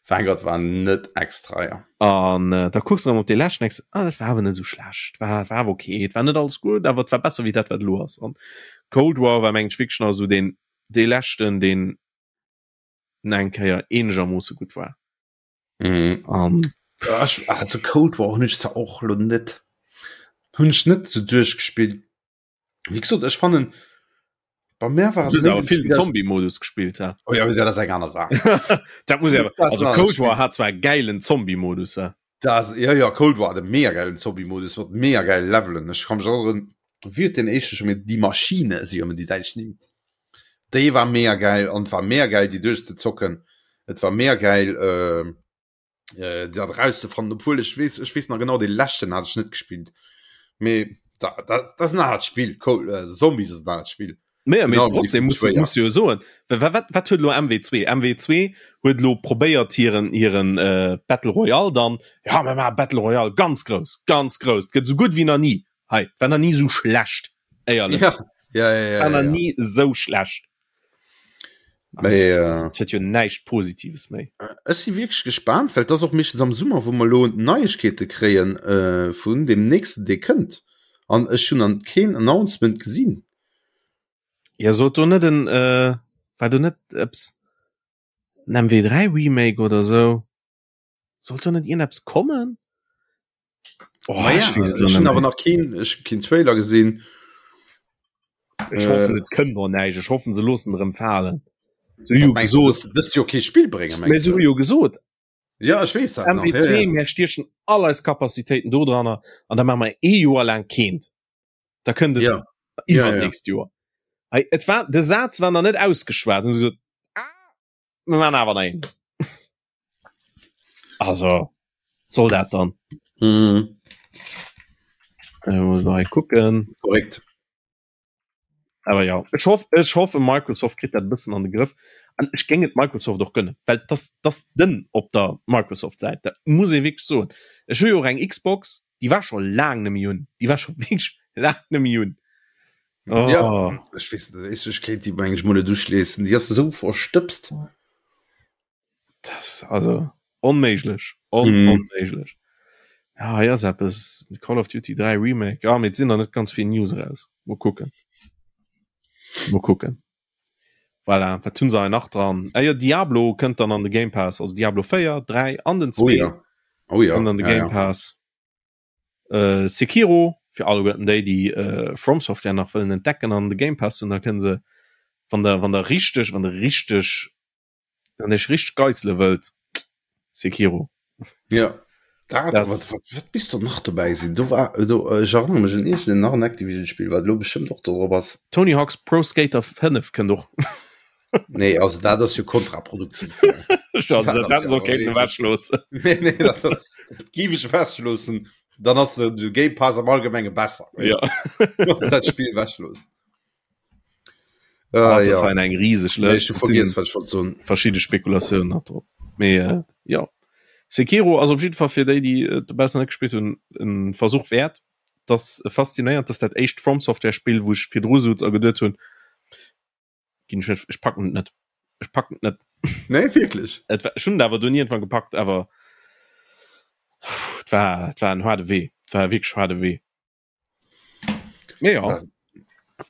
Vanguard war net extra, ja. An da kucks de rëm op dee leschten, denks de, ah dat war awer net esou schlecht, war war awer ok, et war net alles gutt, awer et war besser wéi dat wat elo ass. An Cold War war mengen ech wierklech nach esou deen dee leschten, deen eng Kéier eenegermoosse gutt war. Mhm. An Ja, ech, also Cold War hunn ech zwar och lo net hunn ech net sou duerchgespillt. Wéi gesot, ech fannen bei mär war du et hues méi awer den vill den Spill, Zombie-Modus gespillt, hä? Oh ja, dat ass eng aner Saach. Dat muss awer, Dat ass also en anert Cold War Spill. hat zwar e gäilen Zombie-Modus, hä? Dat ass, ja, ja, Cold War hat e mega gäilen Zombie-Modus mat mega gäile Levelen. Ech ka mech erënneren, wéi huet deen éischte scho méi, Die Maschine, si jo ëmmer déi däitsch Nimm. Déi war mega gäil an et war mega gäil déi duerchzezocken. Et war mega gäil äh, äh, dat erauszefannen, obwuel ech weess, ech weess nach genau, dee leschten hat ech net gespillt. Mee da, dat, dat ass en anert Spill, Cold, äh, Zombies ass en anert Spill. Mee, mee trotzdem muss, muss jo soen wat, wat huet lo MW2 MW2 huet lo probéiert hiren hiren äh, Battle Royale dann ja mir maache Battle Royale ganz grouss ganz grouss gëtt sou gutt wéi nach ni hei war nach ni sou schlecht éierlech ja, ja, ja, ja, war nach ja. ni sou schlecht Mee, äh, also, et huet jo näischt Positives méi Ech si wierklech gespaant, well et ass och meeschtens am Summer, wou mer elo Neiegkeete kréien äh, vun deem nächsten, dee kënnt. An ech hunn an keen Announcement gesinn. Ja sollt do net en äh, war do net eppes en MW3 Remake oder sou? Sollt do net iergendeppes kommen? Oh, Ma ja, ech weess et ech hunn awer nach keen, ech hu keen Trailer gesinn. Ech hoffen et kënnt och näischt. Ech hoffen se loossen erëm falen. Se hu jo gesot, dëst Joer kee Spill bréngen, mengst du? Mee se hu jo gesot, Ja, ech weess dat nach. MW2, ja, ja. Mir stiechen all eis Kapazitéiten do dranner an da maache mer ee Joer laang keent. Da kënnt et ja. iwwernächst ja, ja. Joer. Hey, et war, de Saz war nach net ausgeschwat. Hunn se gesot, ah, mir maachen awer nach een. Also, soll dat dann? Mhm. Äh, muss mal kucken. Korrekt. Awer ja, ech hoff, ech hoffe Microsoft kritt dat e bëssen an de Grëff. An ech géing et Microsoft och gënnen, well dass dass dënn op der Microsoft-Säit, dat muss ee wierklech soen. Ech hu jo och eng Xbox, déi war scho laang net méi un, déi war scho wierklech laang net méi un. Oh. Ja, ech weess net, ech kéint déi meng ech mol net uschléissen, déi ass esou verstëbst. Das also onméiglech on, mm. onméiglech. Ja, hei ass eppes Call of Duty 3 Remake. Ja, mee et sinn nach net ganz vill News eraus. Mol kucken. Mol kucken. Voilà, wat hunn se hei nach dran? Ah, jo, Diablo kënnt dann an de Game Pass, also Diablo 4, 3 an den 2 Oh ja. Oh ja. kënnt an de ja, Game ja. Pass. Äh, Sekiro fir alleguerten déi, déi äh, From Software nach wëllen entdecken an de Game Pass hunn, da kënne se wann der wann der richteg wann der richteg Wann ech richteg geissele wëllt, Sekiro. Ja. Dat, Das- wat, wat, wat bis do nach dobäi sinn? Do war do, äh, ech erënnere mech un iergend nach en Activision-Spill, wat elo bestëmmt och do drop ass. Tony Hawk's Pro Skater 5 kënnt och. Nee, also dat ass jo kontraproduktiv. Also, Dat dat ass hätten se jo och kéinten wirklich- ewechloossen. nee, nee, dat, dat géif ech ewechloossen. Dann ass de Game Pass am Allgemenge besser. Ja. Wann se dat Spill ewechloossen. Ah, Ah, das ja. war eng rieseg Nee, Lëscht. ech hu vergiess, wat ech wollt soen. Verschidde Spekulatiounen nach drop. Mee äh, ja. Sekiro ass op jidde Fall fir déi, déi et dobaussen net gespillt hunn, en Versuch wäert. Das faszinéiert, dass dat éischt From Software Spill, wou ech virdru souz a geduet hunn, ginn ech net, ech packen et net. Ech packen et net. Nee, wierklech? Et war, ech hunn et awer dunn iergendwann gepackt, awer et war, et war en haarde Wee. Et war wierklech haarde Wee. Mee ja,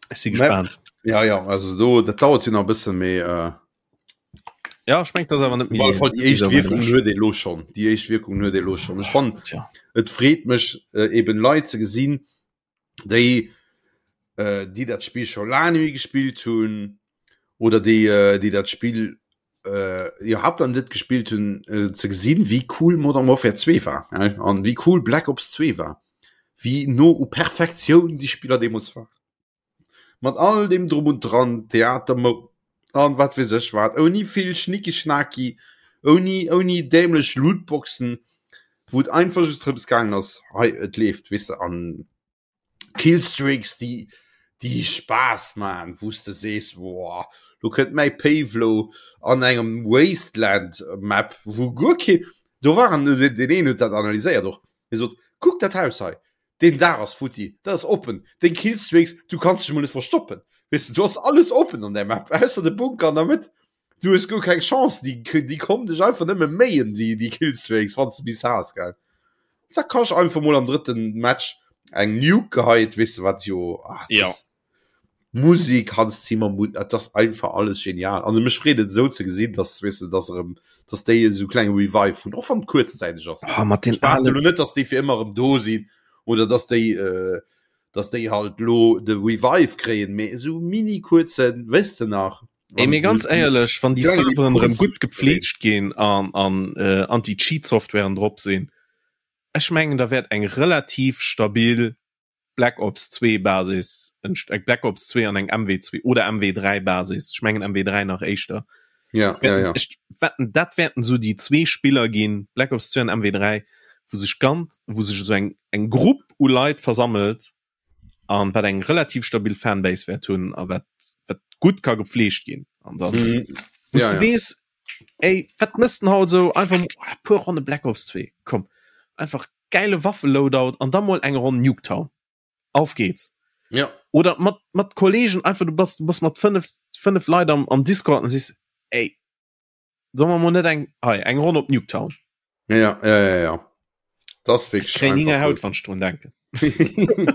ech si gespaant. Ja, ja, also do, dat dauert jo nach e bëssen, mee äh, Ja, ech mengt, dat ass awer net op alle Fall déi éischt Wierkung huet ee lo schonn. Déi éischt Wierkung huet ee lo schonn. Ech fannen, Tja. et freet mech äh, eben Leit ze gesinn, déi äh, déi dat Spill scho laang net méi gespillt hunn oder déi äh, déi dat Spill äh, iwwerhaapt dann net gespillt hunn, äh, ze gesinn, wéi cool Modern Warfare 2 war äh, an wéi cool Black Ops 2 war, wéi no u Perfektioun déi Spiller deemools waren. Mat all dem Drum und Dran, Theater an wat weess ech wat, ouni vill Schnicki-Schnaki, ouni, ouni dämlech Lootboxen, wou et einfach just drëms gaangen ass, hei et leeft, weess de, an Killstreaks, déi, déi Spaass man, wou s de sees, woah, lo kënnt mäi Pavlo an engem Wasteland Map, wou guer kee, do waren, deen een huet dat analyséiert och, hie sot, kuck dat Haus hei, deen Daach ass futti, dat ass oppen, deng Killstreaks, du kanns dech mol net verstoppen, weess de, do ass alles oppen an där Map, ausser de Bunker an der Mëtt, du hues guer keng Chance, déi, déi kommen dech einfach nëmme méien, déi, déi Killstreaks, wann s de bis has, gell. Zack, hast einfach mol am drëtten Match eng Nuke geheit, weess de wat jo, ah, Ja. das Musik, Hans Zimmer, Mu dat ass einfach alles genial. An mech freet et esou ze gesinn, dass, weess de, dass erëm, dass déi esou klenge Revive hunn, och wann et kuerzzäiteg ass. Ah, mat den Ech behaapten alen elo net, dass déi fir ëmmer erëm do sinn oder dass déi, äh, dass déi halt lo de Revive kréien, mee esou mini kuerzen, weess de nach, Ey, mee ganz éierlech, wann déi Serveren erëm gutt gepfleegt ginn an an äh, Anti-Cheat-Softwaren drop sinn, ech mengen da wäert eng relativ stabil Black Ops 2 Basis, eng Black Ops 2 an eng MW2 oder MW3 Basis, ech mengen MW3 nach éischter. Ja, ja, ja. Ech wetten, dat wäerten esou déi zwee Spiller ginn, Black Ops 2 an MW3, wou sech ganz, wou sech esou eng eng Grupp u Leit versammelt. An wat eng relativ stabil Fanbase wäert hunn a wat wat gutt ka gepfleegt ginn. An dann mhm. ja, ja. wees ey, wat mëss den haut so einfach oh, puer Ronne Black Ops 2 komm einfach geile Waffe-Loadout an da mol eng Ronn Nuketown. Auf geht's. Ja. Oder mat mat Kollegen einfach du bass du bass mat 5 5 Leit am am Discord an sees ey soll mer mol net eng hei eng Ronn op Nuketown. Ja, ja, ja, ja. Das wirklich kréien Hinger Haut wann ech drun denken.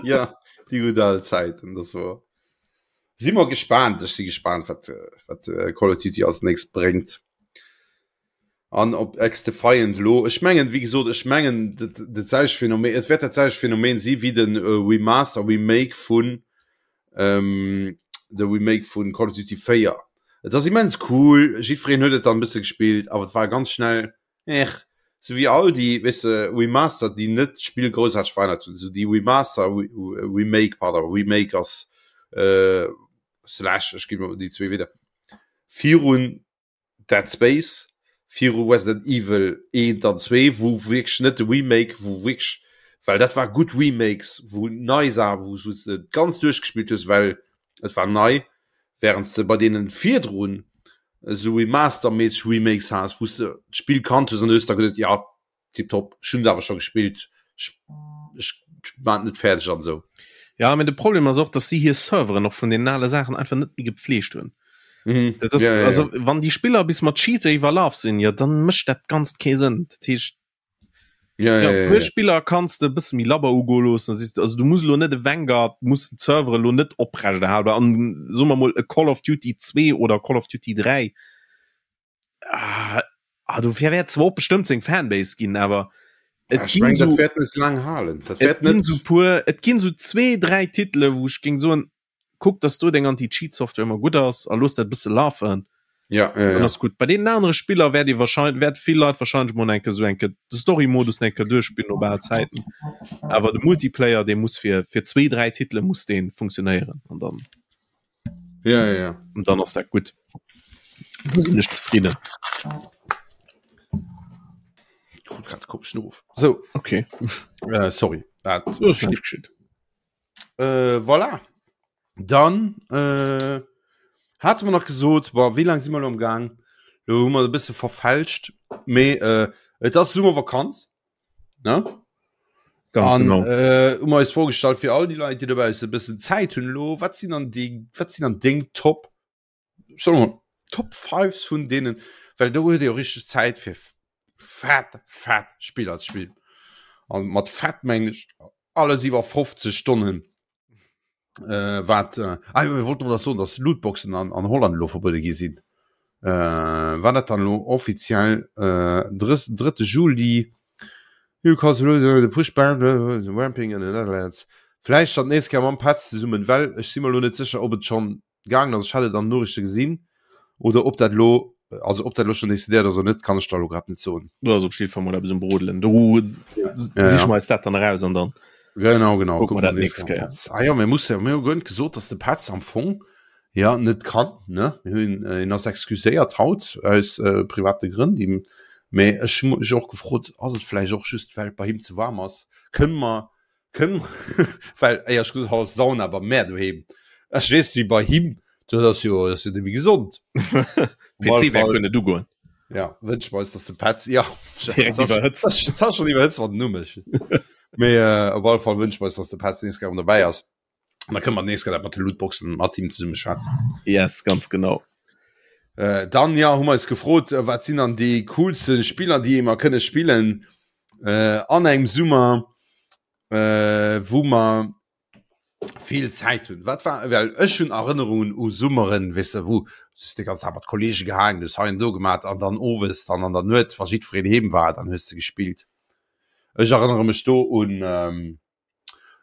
ja, déi gutt al Zäiten, das war. Si mer gespaant, ech si gespaant, wat, wat äh, Call of Duty als nächst bréngt. An op XDefiant elo, ech mengen, wéi gesot, ech mengen dat dat selwecht Phänomen, et wäert dat selwecht Phänomen si wéi de Remaster, Remake vun de Remake vun Call of Duty 4. Et ass immens cool, jiddwereen huet et dann e bësse gespillt, awer et war ganz schnell, ech, sou wéi all déi, weess de, Remaster, déi net d'Spill groussaarteg verännert hunn, sou déi Remaster, Remake, pardon, Remake ass slash, ech ginn elo déi zwee Wieder virun. Dead Space, viru Resident Evil 1 an 2, wou wierklech net de Remake, wou wierklech, well dat war gutt Remakes, wou nei Saachen, wou s de ganz duerchgespillt hues, well et war nei, während s de bei deenen virdrun esou Remaster-méisseg Remakes has, wou s de d'Spill kannt hues an du hues da geduet, jo, Tiptop, ech hunn et awer scho gespillt, ech, ech maan et net fäerdeg an esou. Ja, mee de Problem ass och, dass si hir Serveren och vun den ale Saachen einfach net méi gepflegt hunn. Mhm. Dat ass, ja, ja, ja. Also, wann déi Spiller bis mat Cheater iwwerlaf sinn, ja, dann mécht dat Ganzt kee Sënn. Dat heescht, ja, ja, ja, ja, puer ja. Spiller kanns de e bësse méi labber ugoe loossen. Da also, du muss lo net e Vanguard, muss den Server lo net oprecht erhalen. An soe mer mol e Call of Duty 2 oder Call of Duty 3, ah, ah, dofir wäert zwar och bestëmmt seng Fanbase ginn, awer et ja, ginn so, dat net lang halen. Dat et ginn so puer, et ginn so zwee, dräi Titele, wou ech géing soen, kuck, dass do deng Anti-Cheat-Software ëmmer gutt ass a looss dat bësse lafen. Ja, ja, ja. ass gutt. Bei deenen anere Spiller wäert ee wahrscheinlich, wäert vill Leit wahrscheinlich mol enke so enke de Story-Modus enke duerchspillen no bal Zäiten. Awer de Multiplayer, dee muss fir, fir zwee, dräi Titele muss dee funktionéieren an dann. Ja, ja, ja. Und dann ass dat gutt. Da sinn ech zefridden. Krut grad komischen Ruf. So. Okay. Äh, sorry. Dat äh, voilà. Dann äh, hate mer nach gesot, boah, wéi lang si mer lo am Gang? Lo hu mer e bësse verfälscht, mee äh, et ass Summervakanz. Ne? Ganz An, genau. Äh, hu mer eis vorgestallt fir all déi Leit, déi dobausse e bëssen Zäit hunn elo, wat sinn dann déi, wat sinn dann deng Top, solle mer Top Fives vun deenen, well do huet ee jo richteg Zäit fir fett, fett Spiller ze spillen. An mat fett mengen ech alles iwwer 50 Stonnen. Äh, wat äh, ah, mir wollten das soen, dass Lootboxen an, an Holland elo verbuede gi sinn. Äh, war dat dann elo offiziell äh, 3. Juli You cause the push ban ramping in the Netherlands. Vläicht dann d'nächst Kéier mam Petz zesummen, well ech si mer elo net sécher, ob et schonn gaangen ass, ech hat et an den Noriichte gesinn, oder ob dat elo, also ob dat elo schonn decidéiert ass oder net, kann ech der elo grad net soen. Do ass op jidde Fall mol eppes um Brodelen. Do siche mer eis dat dann eraus an dann Genau, genau. kucke mer dat nächst Kéier. Ah jo, mir musse, mir hu guer net gesot, dass de Petz am Fong ja net kann, ne? Mir hunn, hien ass excuséiert haut aus private Grënn, déi, mee ech hu mech och gefrot, ass et vläicht och just well et bei him ze waarm ass? Kënne mer Kënn, well éierlech gesot, haut ass Sauna bei mär doheem. Ech weess wéi bei him, dat ass jo, dat ass jo net méi gesond. PC wäert guer net ugoen. Ja, wënsche mer eis, dass de Petz, ja, Direkt iwwerhëtzt. Dat ass schonn iwwerhëtzt, wann den Numm ech. Mee op alle Fall wënsche mer eis, dass de Petz nees gär dobäi ass. An da kënne mer nees gär dat mat de Lootboxen mat him zesumme schwätzen. Yes, ganz genau. Äh, dann ja, hu mer eis gefrot, wat sinn dann déi coolste Spiller, déi mer kënne spillen äh, an engem Summer, äh, wou mer vill Zäit hunn. Wat war well ech hunn Erënnerungen u Summeren, weess de, wou du de ganz Tag mat Kollege gehaangen hues, hei an do gemat an dann owes dann an der Nuet, wa jiddwereen heem war, dann hues de gespillt. Ech erënnere mech do un ähm,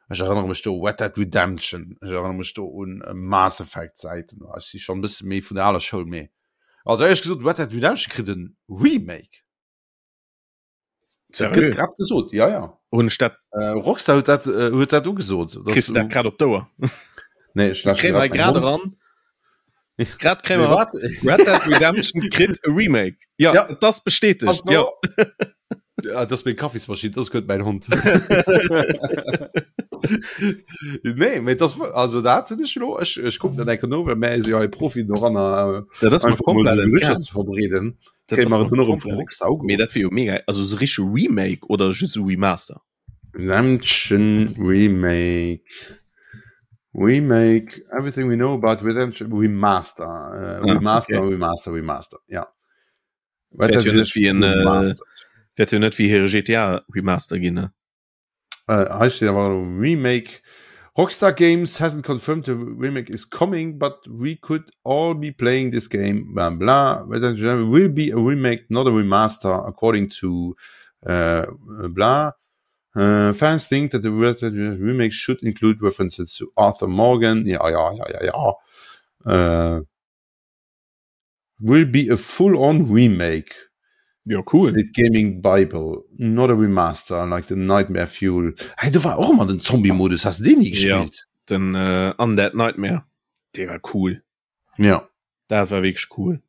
ech erënnere mech do u Red Dead Redemption, ech erënnere mech do un äh, Mass Effect Zäiten. Ech si schonn e bësse méi vun der aler Schoul, mee also éierlech gesot, Red Dead Redemption kritt en Remake. Dat gëtt grad gesot, ja ja. Hunn ech dat äh, Rockstar huet dat äh, huet dat ugesot. Kriss du dat grad op d'Ouer? Nee, ech lauschteren grad grad eran. Grad kréie mer wat? Red Dead Redemption kritt e Remake. Ja, ja. dat ass bestätegt. Ja. ja, dat ass meng Kaffismaschinn, dat ass guer net mäin Hond. Nee, mee das, also dat hunn ech lo, ech, ech kucken dat enke no, well mär si jo hei Profien doranner, äh, Dat ass mer einfach mol komplett déi Gerüchter entgaangen. ze verbreeden. Dat Kréie ass mer mer et dunn och erëm vu komplett Rockstar Mee ugeruff. dat wier jo mega, also esou richtege Remake oder just esou Remaster? Redemption Remake Remake Everything we know about Redemption Remaster äh, Ah, Remaster okay. Remaster Remaster ja. Wäert jo net wéi en äh, wäert jo net wéi hire GTA Remaster ginn ne? Äh, hei steet awer Remake. Rockstar Games hasn't confirmed the remake is coming, but we could all be playing this game. Bla bla. Redemption will be a remake, not a remaster, according to äh, bla. Uh, fans think that the remake should include references to Arthur Morgan. Ja, ja, ja, ja, ja. Uh, will be a full-on remake. Ja, cool. Steet Gaming Bible, not a remaster like the Nightmare Fuel. Hey, do war och ëmmer den Zombie-Modus, has de deen ni gespillt? Ja, den äh, Undead Nightmare, dee war cool. Ja. Dat war wierklech cool.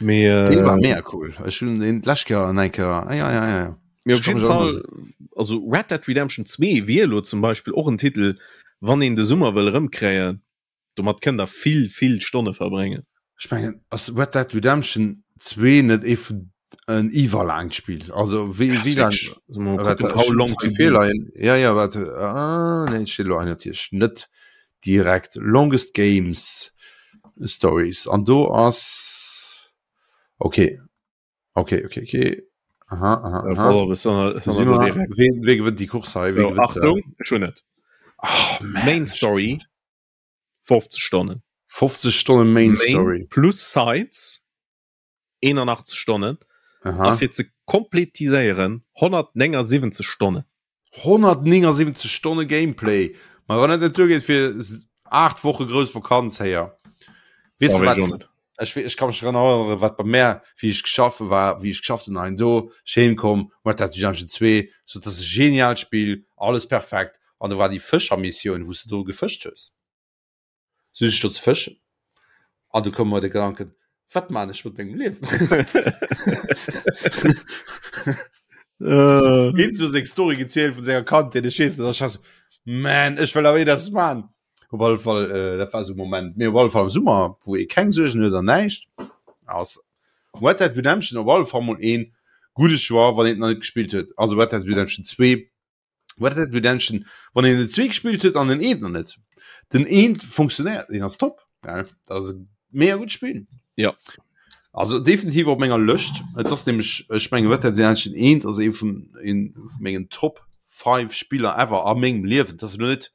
Mee, äh, dee war mega cool. Ech hunn deen d'lescht Kéier an eng Kéier, ah, ja, ja, ja. Mee op jeden Fall, also Red Dead Redemption 2 wier elo zum Beispill och en Titel, wann een de Summer wëll erëmkréien, Domat kënnt der vill, vill Stonne verbréngen. Ech mengen, ass Red Dead Redemption 2 net ee vun en iwwerlaangt Spill? Also wéi wéi laang? How long to beat? Ja ja wat ah, nee, steet elo hei natierlech net direkt. Longest Games Stories an do ass okay. Okay, okay, okay. Aha, aha, aha. Oh, Ween, wee gewënnt déi Course hei? So, Achtung, ech hunn et. Oh, Main Story 50 Stonnen. 50 Stonnen Main, Main Story. Plus Sides 81 Stonnen. Aha. A fir ze kompletiséieren 179 Stonnen. 179 Stonne Gameplay. Ma wann dat net duergeet fir 8 Woche grouss Vakanz héier. Weess de wat? Ech, ech kann mech dran erënneren, wat bei mär, wéi ech geschafft war, wéi ech geschafft hunn hein do, ech heem komm, Red Dead Redemption 2, so dat ass e genialt Spill, alles perfekt, an do war déi Fëschermissioun, wou s de do gefëscht hues. Sot ech do ze fëschen an du koum mer de Gedanken, wat man ech mat mengem Liewen? Hien so seng Story gezielt vun senger Kandheet, ech weess net, ech war so, man, ech wëll awer eppes man. Op alle Fall, äh, dat war so Moment. Mee op alle Fall am Summer, wou ee keng Suergen huet an näischt, ass Red Dead Redemption op alle Fall mol een gudde Choix, wann een et nach net gespillt huet. Also Red Dead Redemption 2 Red Dead Redemption, wann een den 2 gespillt huet an den eent noch net. Den eent funktionéiert, deen ass top. Ja, dat ass e mega gutt Spill. Ja. Also definitiv op menger Lëscht. Et ass nämlech, ech mengen Red Dead Redemption 1 ass ee vun een vu mengen Top 5 Spiller ever a mengem Liewen. Dat ass elo net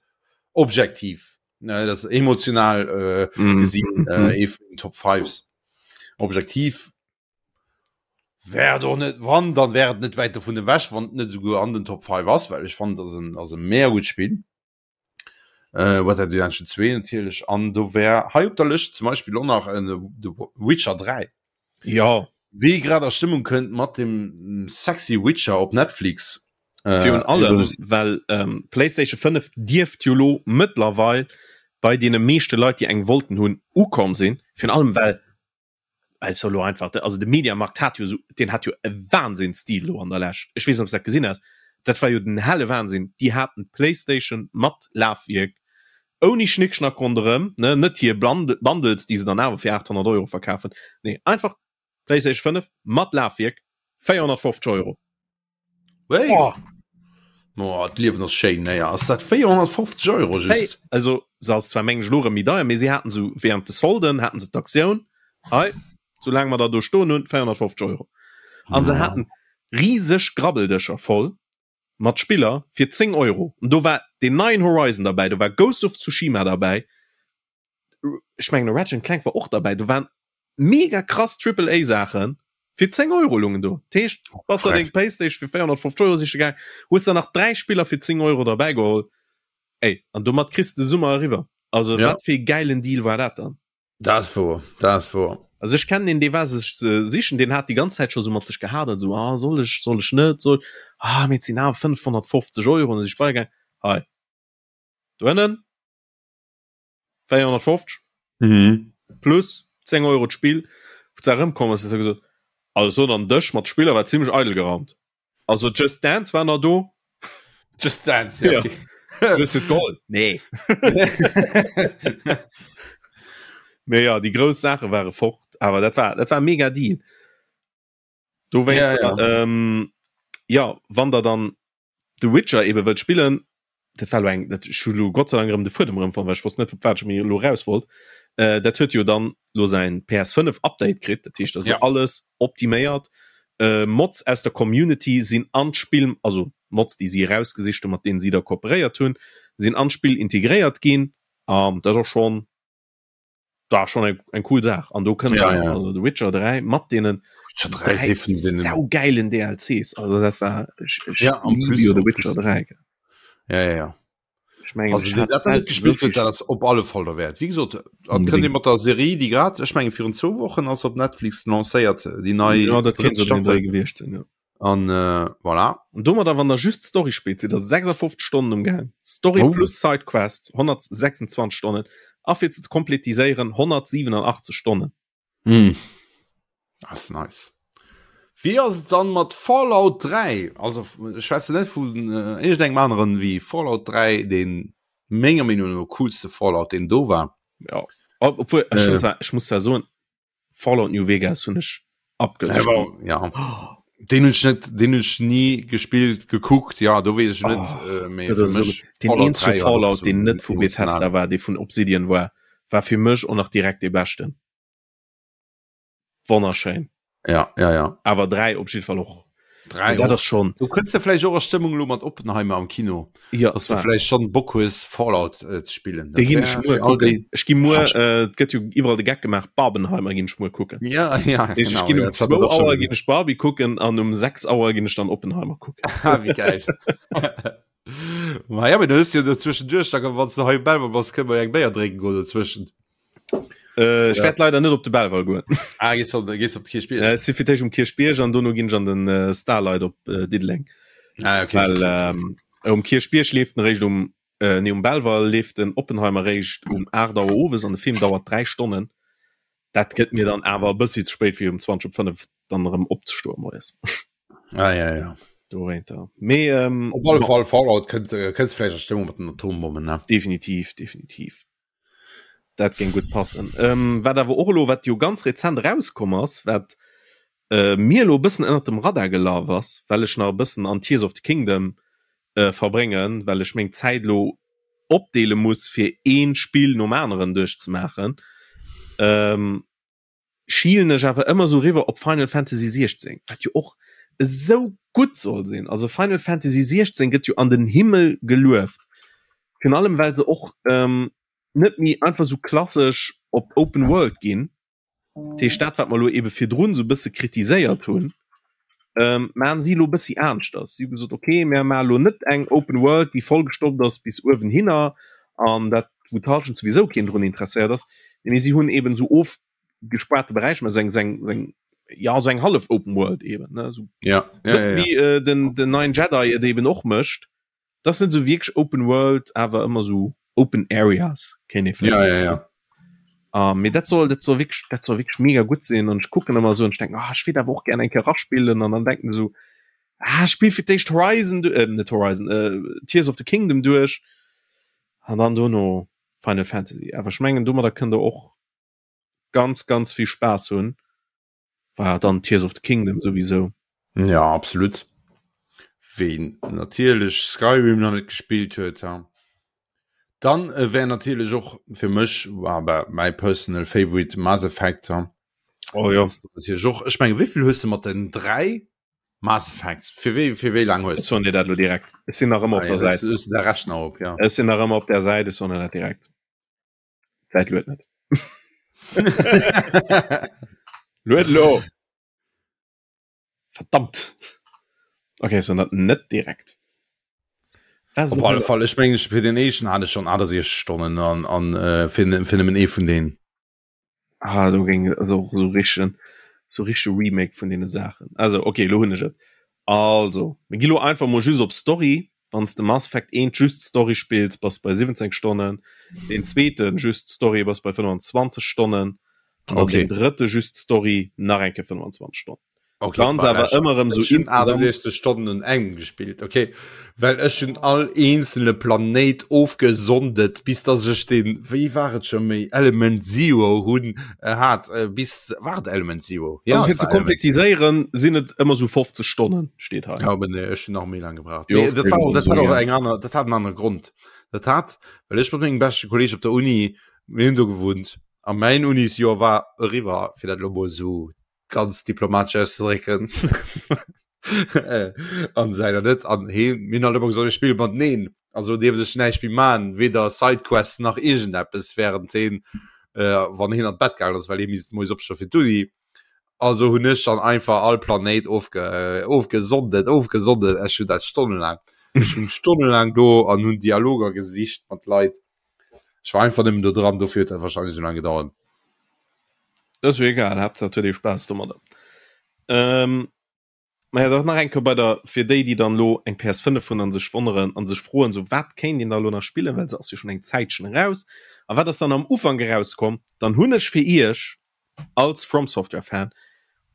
objektiv, ne, dat ass emotional äh, Mm. gesinn äh, ee vun den Top 5s. Objektiv Wär et och net, wann, dann wär et net wäit dovun ewech, wann et net esouguer an den Top 5 ass, well ech fannen, et ass en, ass e mega gutt Spill. Äh, Red Dead Redemption 2 natierlech, an do wär hei op der Lëscht zum Beispill och nach en The Witcher 3. Jo. Wee grad a Stëmmung kënnt mat dem sexy Witcher op Netflix. Äh, Virun allem, well ähm, PlayStation 5 dierft jo lo mëttlerweil bei deene meeschte Leit, déi eng wollten hunn, ukomm sinn. Virun allem, well Also lo einfach also de Mediamarkt hat jo so den hat jo e Wahnsinnsstil lo an der Lescht. Ech weess net ob s dat gesinn has. Dat war jo den helle Wahnsinn. Déi haten d'Playstation mat Lafwierk ouni Schnickschnack ronderëm, ne, net hir Bundles déi se dann awer fir 800 Euro verkafen. Nee einfach Playstation 5 mat Lafwierk 450 Euro. Wéi? Oh. Oh, d'Liewen ass schéin, naja, ass dat 450 Euro just? Hey, also se ass zwar meng ech lo erëm méi deier, mee si haten sou während de Solden haten se d'Aktioun, hei, soulaang mer der do stoen hunn, 450 Euro. An se haten riseg Grabbeldëscher voll mat Spiller fir 10 Euro. An do war deen neien Horizon derbäi, do war Ghost of Tsushima derbäi, ech mengen Ratchet and Clank war och derbäi, do waren mega krass Triple A Saachen fir 10 Euro lungen do. Dat heescht, bass der deng Playstation fir 450 Euro siche gaang, hues der nach 3 Spiller fir 10 Euro derbäi geholl, ey, an domat kriss de Summer eriwwer. Also Ja. wat fir ee gäilen Deal war dat dann? Dat ass wouer, dat ass wouer. Also ech kennen een, dee war sech sichen, deen hat déi ganz Zäit scho sou mat sech gehadert, sou, ah soll ech, soll ech net, soll, ah mee et sinn awer 550 Euro, an da si ech beigaang, hei doënnen, 450 mhm. plus 10 Euro d'Spill wou ze erëmkomm ass, huet gesot also dann Dësch mat Spiller war ziemlech eidel geraumt. Also Just Dance war nach do. Just Dance ja, ja. Okay. Hues du d'Gold? Nee. Mee ja, déi grouss Saache ware fort, awer dat war, dat war mega Deal. Do wéi ja, ja. Ähm, ja wann der dann The Witcher ebe wëllt spillen, dat war lo eng dat ech hu lo Gott sei Dank erëm de Fuedem erëm fonnt, well ech wosst net op wat ech mir lo raus wollt. Äh, dat huet jo dann lo säin PS5 Update kritt, dat heescht also ja. alles optiméiert. Äh, Mods aus der Community sinn an d'Spill, also Mods déi si erausgesicht hunn, mat deenen si da kooperéiert hunn, sinn an d'Spill integréiert ginn. An dat ass schon war schon eng, eng cool Saach an do kënnt ja, ja. also The Witcher 3 mat denen saugeilen DLCs also dat war ich, ich ja, am plus, The Witcher 3 ja, ja, ja. Ich mein, also, ich dat net gespielt wird dat op alle Fall der Wert wie gesagt kënnt mat der Serie die grad ech menge virun 2 Wochen ass op Netflix lancéiert die nei ja, dat gewicht sinn ja. An äh, voilà. An domadder wann der just Story spillt, sidd der 56 Stonnen um Gaang. Story oh. plus Sidequest 126 Stonnen a fir ze kompletiséieren 187 Stonnen. Mm. Das ist nice. Wie ass et dann mat Fallout 3? Also ech schwätze net vun äh, iergendengem aneren wéi Fallout 3, den menger Meenung no coolste Fallout, den do war. Ja. Obwohl, ech, äh. zwar, ech muss zwar soen, Fallout New Vegas hunn ech abgespillt. Ja. Den hunn ech net, den hunn ech nie gespillt, gekuckt, ja, do weess ech net. Oh, äh, mee fir mech den eenzege Fallout, den net vu Bethesda war, dee vun Obsidian war, war fir mech och nach direkt dee beschten. Wonnerschéin. Ja, ja, ja. Awer 3 op jidde Fall och. 3 dat ass schon. Du kënns de vläicht och a Stëmmung lo mat Oppenheimer am Kino. Ja, dass du vläicht schon Bock hues Fallout äh, ze spillen. Dee ginn ech muer kucken. Ech gi muer, äh, et gëtt jo iwwerall de Geck gemaach, Barbenheimer ginn ech muer kucken. Ja, ja, genau. Ech ginn um 2 Auer ginn ech Barbie kucken an um 6 Auer ginn ech dann Oppenheimer kucken. Ah, wéi geil. Ma ja, mee du hues jo dozwëschenduerch, da wann s du hei um Belval bass, kënne mer jo eng Béier drénken goen dozwëschent. Äh, ech ja. werd leider net op de Belval goen. Ah, gehst op, gehst op de Kierchbierg? Äh, si fir d'éischt um Kierchbierg an dono ginn ech an den äh, Starlight op äh, Diddeleng. Ah, okay. Well ähm, um Kierchbierg leeft en réischt um äh, nee, um Belval leeft den Oppenheimer réischt um 8 Auer owes an de Film dauert 3 Stonnen. Dat gëtt mir dann awer e bëssi ze spéit fir um 20 op 5 dann erëm opzestoen moies. Ah, ja, ja. Dowéinter. Mee ähm, Op alle Fall Fallout kënnt äh, kënns vläicht a Stëmmung mat den Atombommen, ne? Definitiv, definitiv. Dat géing gutt passen. Ähm, wat awer och elo, wat jo ganz rezent erauskomm ass, wat äh, mir elo e bëssen ënnert dem Radar gelaf ass, well ech nach e bëssen an Tears of the Kingdom äh, verbréngen, well ech meng Zäit elo opdeele muss, fir ee Spill nom aneren duerchzemaachen. Ähm, schielen ech awer ëmmer sou riwwer op Final Fantasy 16, wat jo och esou gutt soll sinn. Also Final Fantasy 16 gëtt jo an den Himmel gelueft. Virun allem well se och ähm, net méi einfach sou klassesch op Open World ginn. Dat heescht dat wat mer elo ebe virdrun sou bësse kritiséiert hunn, ähm, maachen si elo bëssi aneschters. Si hu gesot, okay, mir maache elo net eng Open World, déi vollgestoppt ass bis uewenhinner an dat wou d'Halschent souwisou keen drun interesséiert ass, mee si hunn eben esou ofgespaarte Beräicher, mä esou eng, esou eng, esou eng, ja esou eng hallef Open World eben, ne, esou Ja, ja, bëssen ja, ja. wéi äh, den, den neien Jedi et eben och mécht. Dat ass net esou wierklech Open World, awer ëmmer esou Open Areas, kéint ee vläicht Ja, ja, ja. Uh, mee dat soll dat soll wierklech dat soll wierklech mega gutt sinn an ech kucken ëmmer esou an ech denken, ah, ech wéilt awer och gär eng Kéier eraspillen an dann denken esou, ah, spill fir d'éischt Horizon, äh, net Horizon, äh, Tears of the Kingdom duerch an dann dono Final Fantasy. Awer ech mengen domadder kënnt der och ganz ganz vill Spaass hunn, war dann Tears of the Kingdom souwisou. Ja, absolut. Ween natierlech Skyrim nach net gespillt huet, ha. Dann äh, wär natierlech och fir mech war mäi personal favorite Mass Effect. Ha. Oh ja. Natierlech och. Ech menge wéivill hues de mat den 3 Mass Effects? Fir wéi fir wéi laang hues Ech soen dir dat lo direkt. Ech sinn nach ëmmer ah, op der ja, Säit. Hues du de Rechner op, ja. Ech sinn nach ëmmer op der Säit, ech soen dir dat direkt. D'Säit luet net. Luet lo! Verdammt! Okay, ech soen dat net direkt. Was Op alle Fall, ech mengen, fir den éischten hat ech schon 68 Stonnen an, an äh, fir, fir nëmmen ee vun denen. Ah, do géing also och esou richtegen, sou richtege Remake vun deene Saachen. Also, okay, elo hunn ech et. Also, mir gi lo einfach mol just op Story. Wann s de Mass Effect 1 just Story spills, bass bei 17 Stonnen. Deen zweeten just Story bass bei 25 Stonnen. An dann Okay. deen drëtte just Story nach eng Kéier 25 Stonnen. Okay, Ganz awer ëmmer erëm sou 68 Stonnen un engem gespillt okay well ech hunn all eenzele Planéit ofgesondet bis dass ech den wéi war et scho méi Element Zero hunn äh, hat äh, bis war et Element Zero ja, also fir ze kompletiséieren sinn et ëmmer sou 50 Stonnen steet hei ja, aber nee, ech hunn nach méi lang gebraucht jo, nee, dat war, dat hat och eng aner dat hat en anere Grond dat hat well ech mat mengem beschte Kolleg op der Uni mir hunn do gewunnt a mäin Unisjoer war eriwwer fir dat lo mol sou ganz diplomatesch auszedrécken an seiner net an he mir hunn halt ëmmer gesot mir spille mateneen also dierft ech näischt méi man weder Sidequests nach iergendeppes während heen äh, wann heen an d'Bett gaangen ass well hee misst moies opstoe fir d'Uni also hunn ech dann einfach all Planéit ofge äh, ofgesondet ofgesondet ech hunn dat stonnelaang ech hunn stonnelaang do an hunn Dialoger gesicht mat Leit ech war einfach nëmmen do dran dofir huet dat wahrscheinlech esou laang gedauert. Dat ass jo egal, Haaptsaach et huet ee Spaass domadder. Ähm, ma ja, dach nach eng Kéier bei der, fir déi, déi dann elo eng PS5 hunn a sech wonneren a sech froen, sou wat kéint een da elo nach spillen, well se ass jo schonn eng Zäitchen eraus. A wat ass dann am Ufank erauskomm? Dann hunn ech fir iech als From Software Fan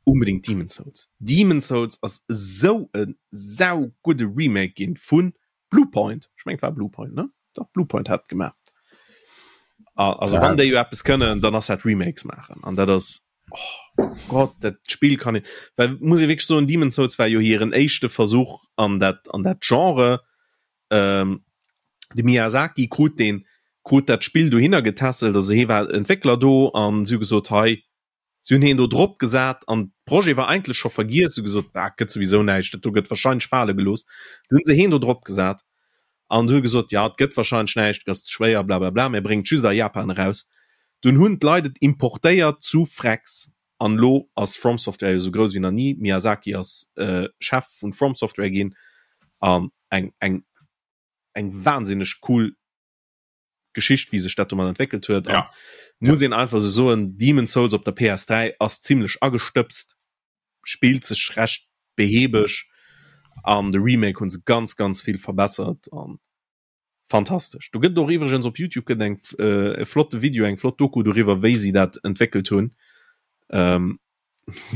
unbedingt Demon's Souls. Demon's Souls ass esou e saugudde Remake ginn vu Bluepoint, ech mengen et war Bluepoint, ne? Dach, Bluepoint hat et gemaach. Also wann déi jo eppes kënnen, dann ass dat Remakes maachen. An dat ass, oh Gott, dat Spill kann een, well muss ee wierklech soen, Demon's Souls war jo hiren éischte Versuch an dat, an dat Genre. Ähm, de Miyazaki krut deen, krut dat Spill dohinner getässelt, also hee war Entwéckler do an si hu gesot, hei, Si hunn heen do drop gesat an Projet war eigentlech scho vergiess, hu gesot, ah, gëtt souwisou näischt, dat do gëtt wahrscheinlech fale gelooss. Du hunn se heen do drop gesat an hu gesot, ja, et gëtt wahrscheinlech näischt, et ass ze schwéier, blablabla, mir bréngen et just a Japan eraus. Dunn hunn d'Leit et importéiert zu Frex an elo ass From Software jo sou grouss wéi nach ni. Miyazaki ass Chef vun From Software ginn an eng, eng, eng wahnsinneg cool Geschicht wéi sech dat domat entwéckelt huet ja. muss ja. een einfach sou soen Demon's Souls op der PS3 ass zimmlech agestëbst spillt sech recht behäbeg an de Remake hunn se ganz ganz vill verbessert an fantastesch. Do gëtt och iwwregens op Youtube gëtt eng äh, e flotte Video eng flott Doku doriwwer wéi si dat entwéckelt hunn ähm,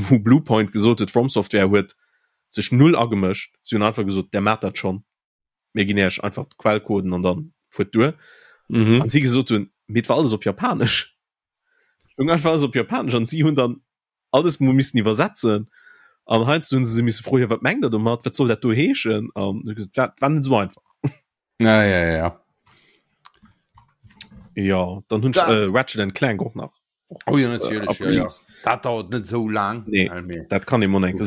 wou Bluepoint gesot huet From Software huet sech null agemëscht si hunn einfach gesot der maacht dat schonn. mir ginn Iech einfach d'Quellcoden an dann fuert duer. Mhm. An si gesot hunn, mee et war alles op Japanesch. Stoung einfach alles op Japanesch an si hunn dann alles mol missen iwwersetzen. An heiansdo hunn se se misse froen, jo wat mengt der domat, wat soll dat do heeschen? An hu gesot, war, war net esou einfach. Ja, ja, ja. Ja, dann hunn ech äh, Ratchet and Clank och nach. Oh ja, natierlech, ja, ja. Dat dauert net esou laang. Nee, dat kann ee mol eng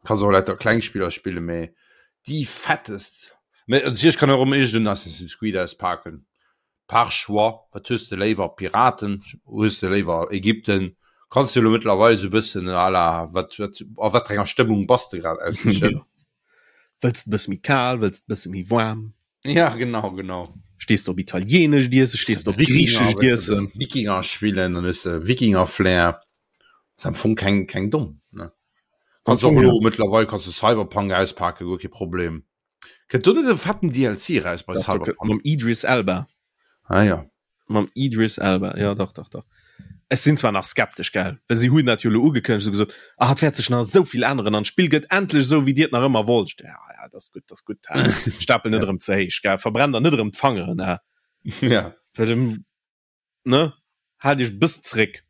Kanns och lauter kleng Spiller spille mee déi fettest. Mee natierlech kann och ëmmer iergend en Assassin's Creed auspaken. Par choix, wat hues de léiwer, Piraten, hues de léiwer Ägypten? Kanns de elo mëttlerweil esou e bëssen à la wat wat a wat fir enger Stëmmung bass de grad aussichen. Wëlls de e bësse méi kal, wëlls de e bësse méi waarm? Ja genau genau. Stees de op italienescht Iessen, stees de op griichescht Iessen? Wikinger spillen, dann hues de Wikinger-Flair. Ass am Fong keng keng domm ne. Kanns och elo mëttlerweil kanns de Cyberpunk auspaken, guer kee Problem. Kënnt do net e fetten DLC eraus bei Cyberpunk? Mam Idris Elba. Ah ja. Mam Idris Elba, ja dach, dach, dach. Ech sinn zwar nach skeptesch, gell, well si hunn dat jo elo ugekënnegt, hu gesot, ah, et wäert sech nach esou vill änneren an d'Spill gëtt endlech esou, wéi dir et nach ëmmer wollt. Ja, ja, dat ass gutt, dat ass gutt, hä. Stapel net erëm ze héich, gell, verbrenn der net erëm d'Fangeren, hä. Ja. Well, ne, haalt iech e bëssen zeréck.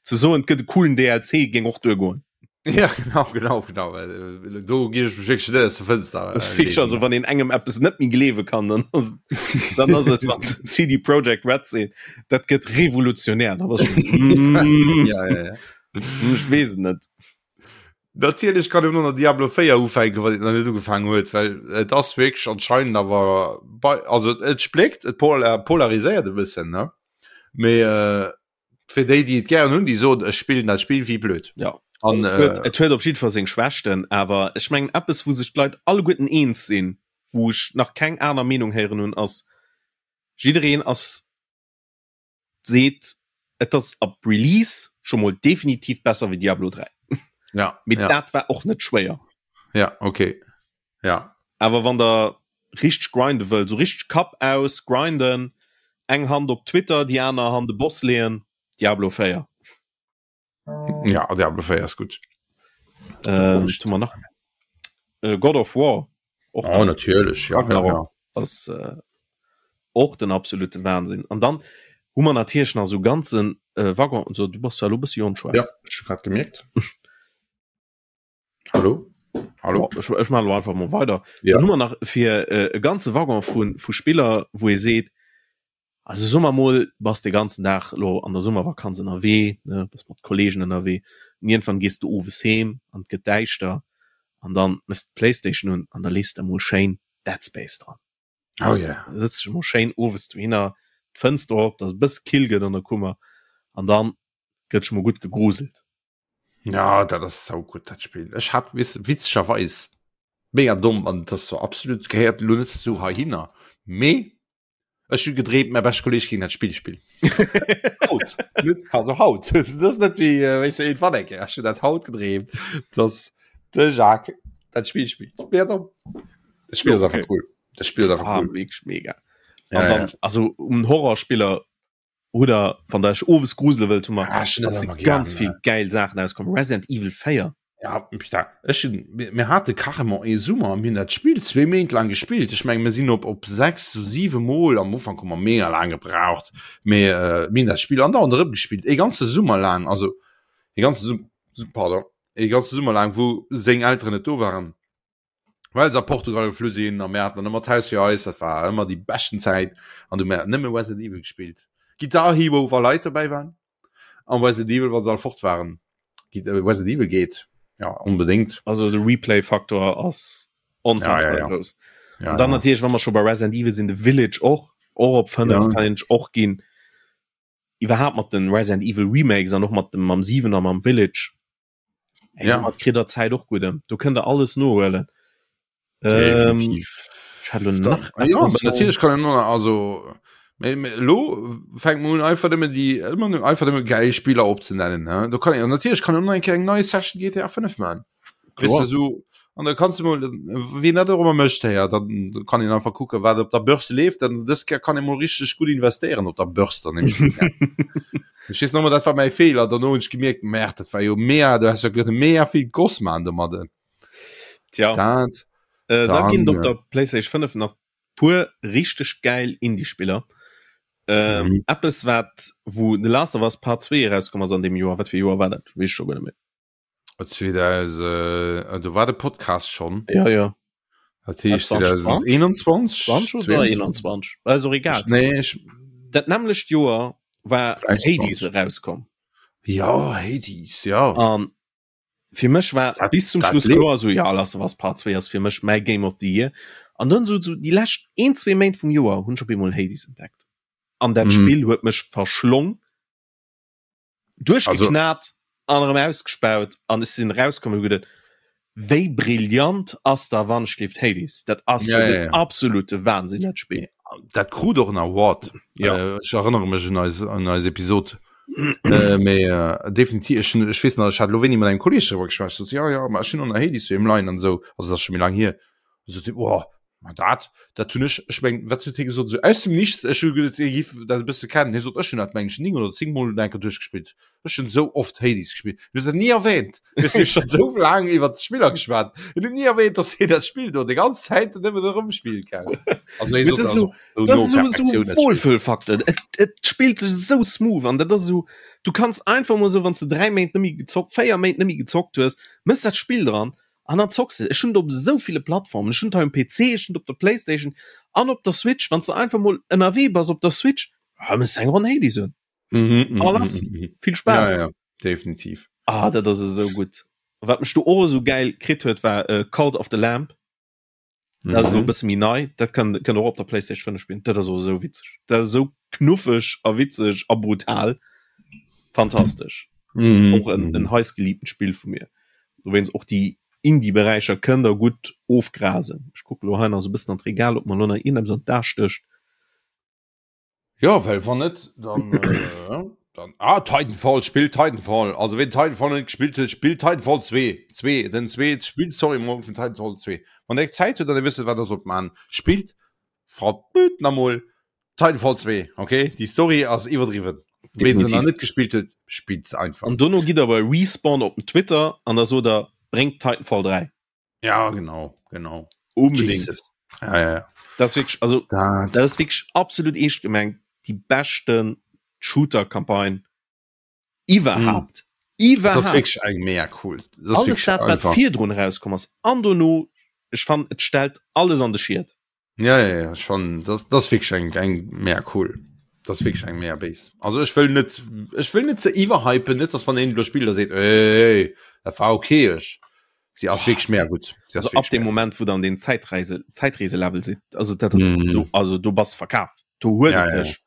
Ze soen, et gëtt e coolen DLC, géing och duergoen. Ja genau genau genau äh, do gi ech mech wierklech net aus der Fënster äh, Fisch, also wann een engem eppes net méi gleewe kann dann ass dann ass et wann CD Projekt Red seet dat gëtt revolutionär da bass mm. ja, ja, ja. Ech weess et net. Natierlech kann een och nach Diablo 4 ufänken, wann een nach net ugefaangen huet, well et ass wierklech anscheinend awer bei also et spléckt, et polar polariséiert e bëssen ne mee äh, fir déi déi et gären hunn, déi soen ech spillen dat Spill wéi blöd. Ja. An, et huet, äh, et huet op jiddwer Fall seng Schwächten, awer ech mengen eppes wou sech d'Leit alleguerten eens sinn, wou ech nach keng aner Meenung héieren hunn, ass jiddereen ass seet et ass ab Release scho mol definitiv besser wéi Diablo 3. Ja, Mee ja. dat war och net schwéier. Ja, okay. Ja. Awer wann der richteg grinde wëllt, sou richteg Kapp aus grinden, eng Hand op Twitter, déi aner Hand de Boss leeën, Diablo 4. Ja, Diablo 4 ass gutt. Ähm, hu mer nach äh, God of War och oh, natierlech ja, ja, ja. ass äh, och den absolute Wahnsinn. An dann hu mer natierlech nach so ganzen äh, Waggon so du bass zwar lo bëssi onscharf. Ja, ech hu grad gemierkt. Hallo? Hallo? Ech, ech maache lo einfach mol weider. Ja. Dann hu mer nach fir äh, e ganze Waggon vu, vu Spiller, wou ee seet, also soe mer mol, bass de ganzen Dag lo an der Summervakanz ënnerwee, ne, bass mat Kollegen ënnerwee, an iergendwann gees du owes heem an et gëtt däischter an dann méchs de d'Playstation un an da lees de emol schéin Dead Space dran. Oh yeah. Da sëtz dech emol schéin owes dohinner, d'Fënster op, dass et e bësse kill gëtt an der Kummer an dann gëtt sech mol gutt gegruselt. Ja, dat ass sau gutt dat Spill. Ech hat wis witzegerweis mega domm an das so absolut gehéiert lo net zu heihinner. Mee ech hu gedreemt mäi beschte Kolleg géing dat Spill spillen. Haut net also haut dat ass net wéi äh, wéis du irgendwann eng Kéier. Ech hunn dat haut gedreemt, dass de Jacques dat Spill spillt. Mega domm. Dat Spill ass einfach cool. Dat Spill ass einfach Ah, cool. wierklech mega. Ja, An dann, ja. also um Horrorspiller Oder wann der iech owes grusele wëllt, hu mer Ah, ech hunn dat ëmmer ganz gär, vill ne? gäil Saachen auskomm. Resident Evil 4. Ja, putain, ech hunn, mir, mir hate carrément ee Summer, mir hunn dat Spill zwee Méint laang gespillt. Ech meng, mir sinn op, op sechs, siwe Mol, am Ufank hu mer mega laang gebraucht, mee äh, mir hunn dat Spill andauernd erëm gespillt, ee ganze Summer laang, also ee ganze Sum, pardon, ee ganze Summer laang, wou seng Elteren net do waren. Well se a Portugal geflu sinn a mir haten dann ëmmer d'Haus fir eis, dat war ëmmer déi beschten Zäit an du mir nëmme Resident Evil gespillt. Guitar Hero wa Leit dobäi waren an Resident Evil wa se all fort waren. Äh, Resident Evil geet ja onbedéngt. Also de Replay-Faktor ass onfassbar Ja, ja, ja. grouss. Ja, An dann ja. natierlech, wa mer scho bei Resident Evil sinn, de Village och, och op 5 Ja. kann een sech och ginn. Iwwerhaapt mat den Resident Evil Remakes an och mat dem mam 7 a mam Village. Ey, Ja. domat kritt der Zäit och gutt ëm. Do kënnt der alles nohuelen. Ähm, Definitiv. ech hat lo Da, nach ah, ja, etwas natierlech kann en noch, also mee, mee, lo fänkt man un einfach nëmmen déi ëmmer nëmmen einfach nëmmen geil Spiller opzenennen ne? Do kann een natierlech kann een och nach eng Kéier eng nei Session GTA 5 man. Weess Kloer. de sou an da kanns du mol wien dat och ëmmer mécht héier, dann kann een einfach kucke wat op der Börse leeft, dann dës Kéier kann ee mol richteg gutt investéieren op der Börse dann nämlech. Ech weess nach ëmmer dat war mäi Feeler, dono hunn ech gemierkt, Merde, dat war jo mega, du häss jo kënne mega vill Goss man domadden. Tja. Dat Äh, da ginn dann et op der PlayStation 5 nach puer richteg gäil Indie-Spiller. Ähm, Mhm. Eppes wat wou The Last of Us Part 2 erauskomm ass an deem Joer, wat fir e Joer war dat? Weess ech scho guer net méi. 2000, do war de Podcast schon. Ja, ja. Dat heescht 2021? 20 oder 21? Ass och egal. Nee, ech, Dat nämmlecht Joer war Hades erauskomm. Ja, Hades, ja. An fir mech war dat, bis zum dat Schluss lebt. kloer, so ja, Last of Us Part 2 ass fir mech mäi Game of the Year. An dann so, so déi lescht een, zwee Méint vum Joer hunn ech op eemol Hades entdeckt. An dat Mhm. Spill huet mech verschlong. Duerchgeknat an erëm ausgespaut an ech sinn erauskomm an hu geduet, wéi brillant ass da wannschlift Hades? Dat ass Ja, jo ja, den ja. absolute Wahnsinn dat Spill. Dat krut och en Award. Ja. Äh, ech erënnere mech un eis, un eis Episod. äh, mee äh, definitiv, ech, ech weess nach, ech hat lo wéini mat engem Kolleg driwwer geschwat, sot, ja, ja, ma ech hunn och nach Hades doheem leien an esou, also dat ass scho méi laang hier. Sot hie, oh, ma dat, dat hunn ech, ech meng, wat huet hie gesot, esou aus dem Nichts, ech hu geduet, hie giff dat e bësse kennen, hie sot, ech hunn dat, meng ech, 9 oder 10 Mol eng Kéier duerchgespillt, ech hunn esou oft Hades gespillt. Hien huet dat ni erwähnt, weess du, ech hunn esou laang iwwer d'Spiller geschwat, hien huet ni erwähnt, dass hien dat Spill do déi ganz Zäit nëmmen erëmspillt, gell. Also hie Mee sot, dat ass also, esou, esou dat no ass esou, esou Perfektioun, dat Spill. Wohlfühlfaktor, et, et spillt sech esou smooth an dat ass esou, du kanns einfach mol esou, wann s de 3 Méint net méi gezockt, 4 Méint net méi gezockt hues, mëss dat Spill dran An dann zocks de. Ech hunn et op esou ville Plattformen. Ech hunn et hei um PC, ech hunn et op der Playstation an op der Switch. Wann s de einfach mol ënnerwee bass op der Switch, ah, mëss eng Ronn Hades un. Mhm, A lass. mhm, mhm. Vill Spaass. Ja, ja, definitiv. Ah, dat ass esou gutt. Wat mech do och esou gäil kritt huet, war äh, Cult of the Lamb. Dat ass elo e Mhm. bësse méi nei. Dat kann, kënnt och op der Playstation 5 spillen. Dat ass och esou witzeg. Dat ass esou knuffeg a witzeg a brutal. Fantastesch. Mhm. Och en, en heiß geliebtent Spill vu mir. Dowéinst och déi Indie-Beräicher kënnt der gutt ofgrasen. Ech kucke lo hei nach esou e bëssen an d'Regal, ob mer lo nach iergendeppes an d'A stécht. Ja, well wann net, dann, äh, dann ah, Titanfall, spillt Titanfall. Also ween Titanfall net gespillt huet, spillt Titanfall 2. 2, den 2, spillt Story Mode vun Titanfall 2. Wann der Zäit huet an der wësst, wat der sollt man, spillt verdammt namol Titanfall 2, okay? Déi Story ass iwwerdriwwen. Ween se nach net gespillt huet, spillt se einfach. An dono gitt der bei Respawn op den Twitter an da sot der. Bréngt Titanfall 3. Ja genau genau unbedingt. Ja, ja, ja. Das wirklich, also dat, dat ist wirklich absolut eescht gemengt die beschten Shooter-Campagne iwwerhaupt. Mm. Iwwerhaupt. Das ist wirklich eng mega cool. Das alles dat wat virdrun rauskomm ass an dono ech fand et stellt alles an de Schied. Ja, ja, ja schon das, das wirklich eng eng mehr cool. Das wirklich eng mehr Base. Also ech will net ech will net ze iwwerhypen net dass van een lo Spieler seet ey, dat war okay ech. Sie ass wirklich mehr gut. Sie ass also ab dem Moment wo dann den Zeitreise Zeitreise Level si also dat ass, mm. du, also du bass verkaf. Du huet ja, ja. dech.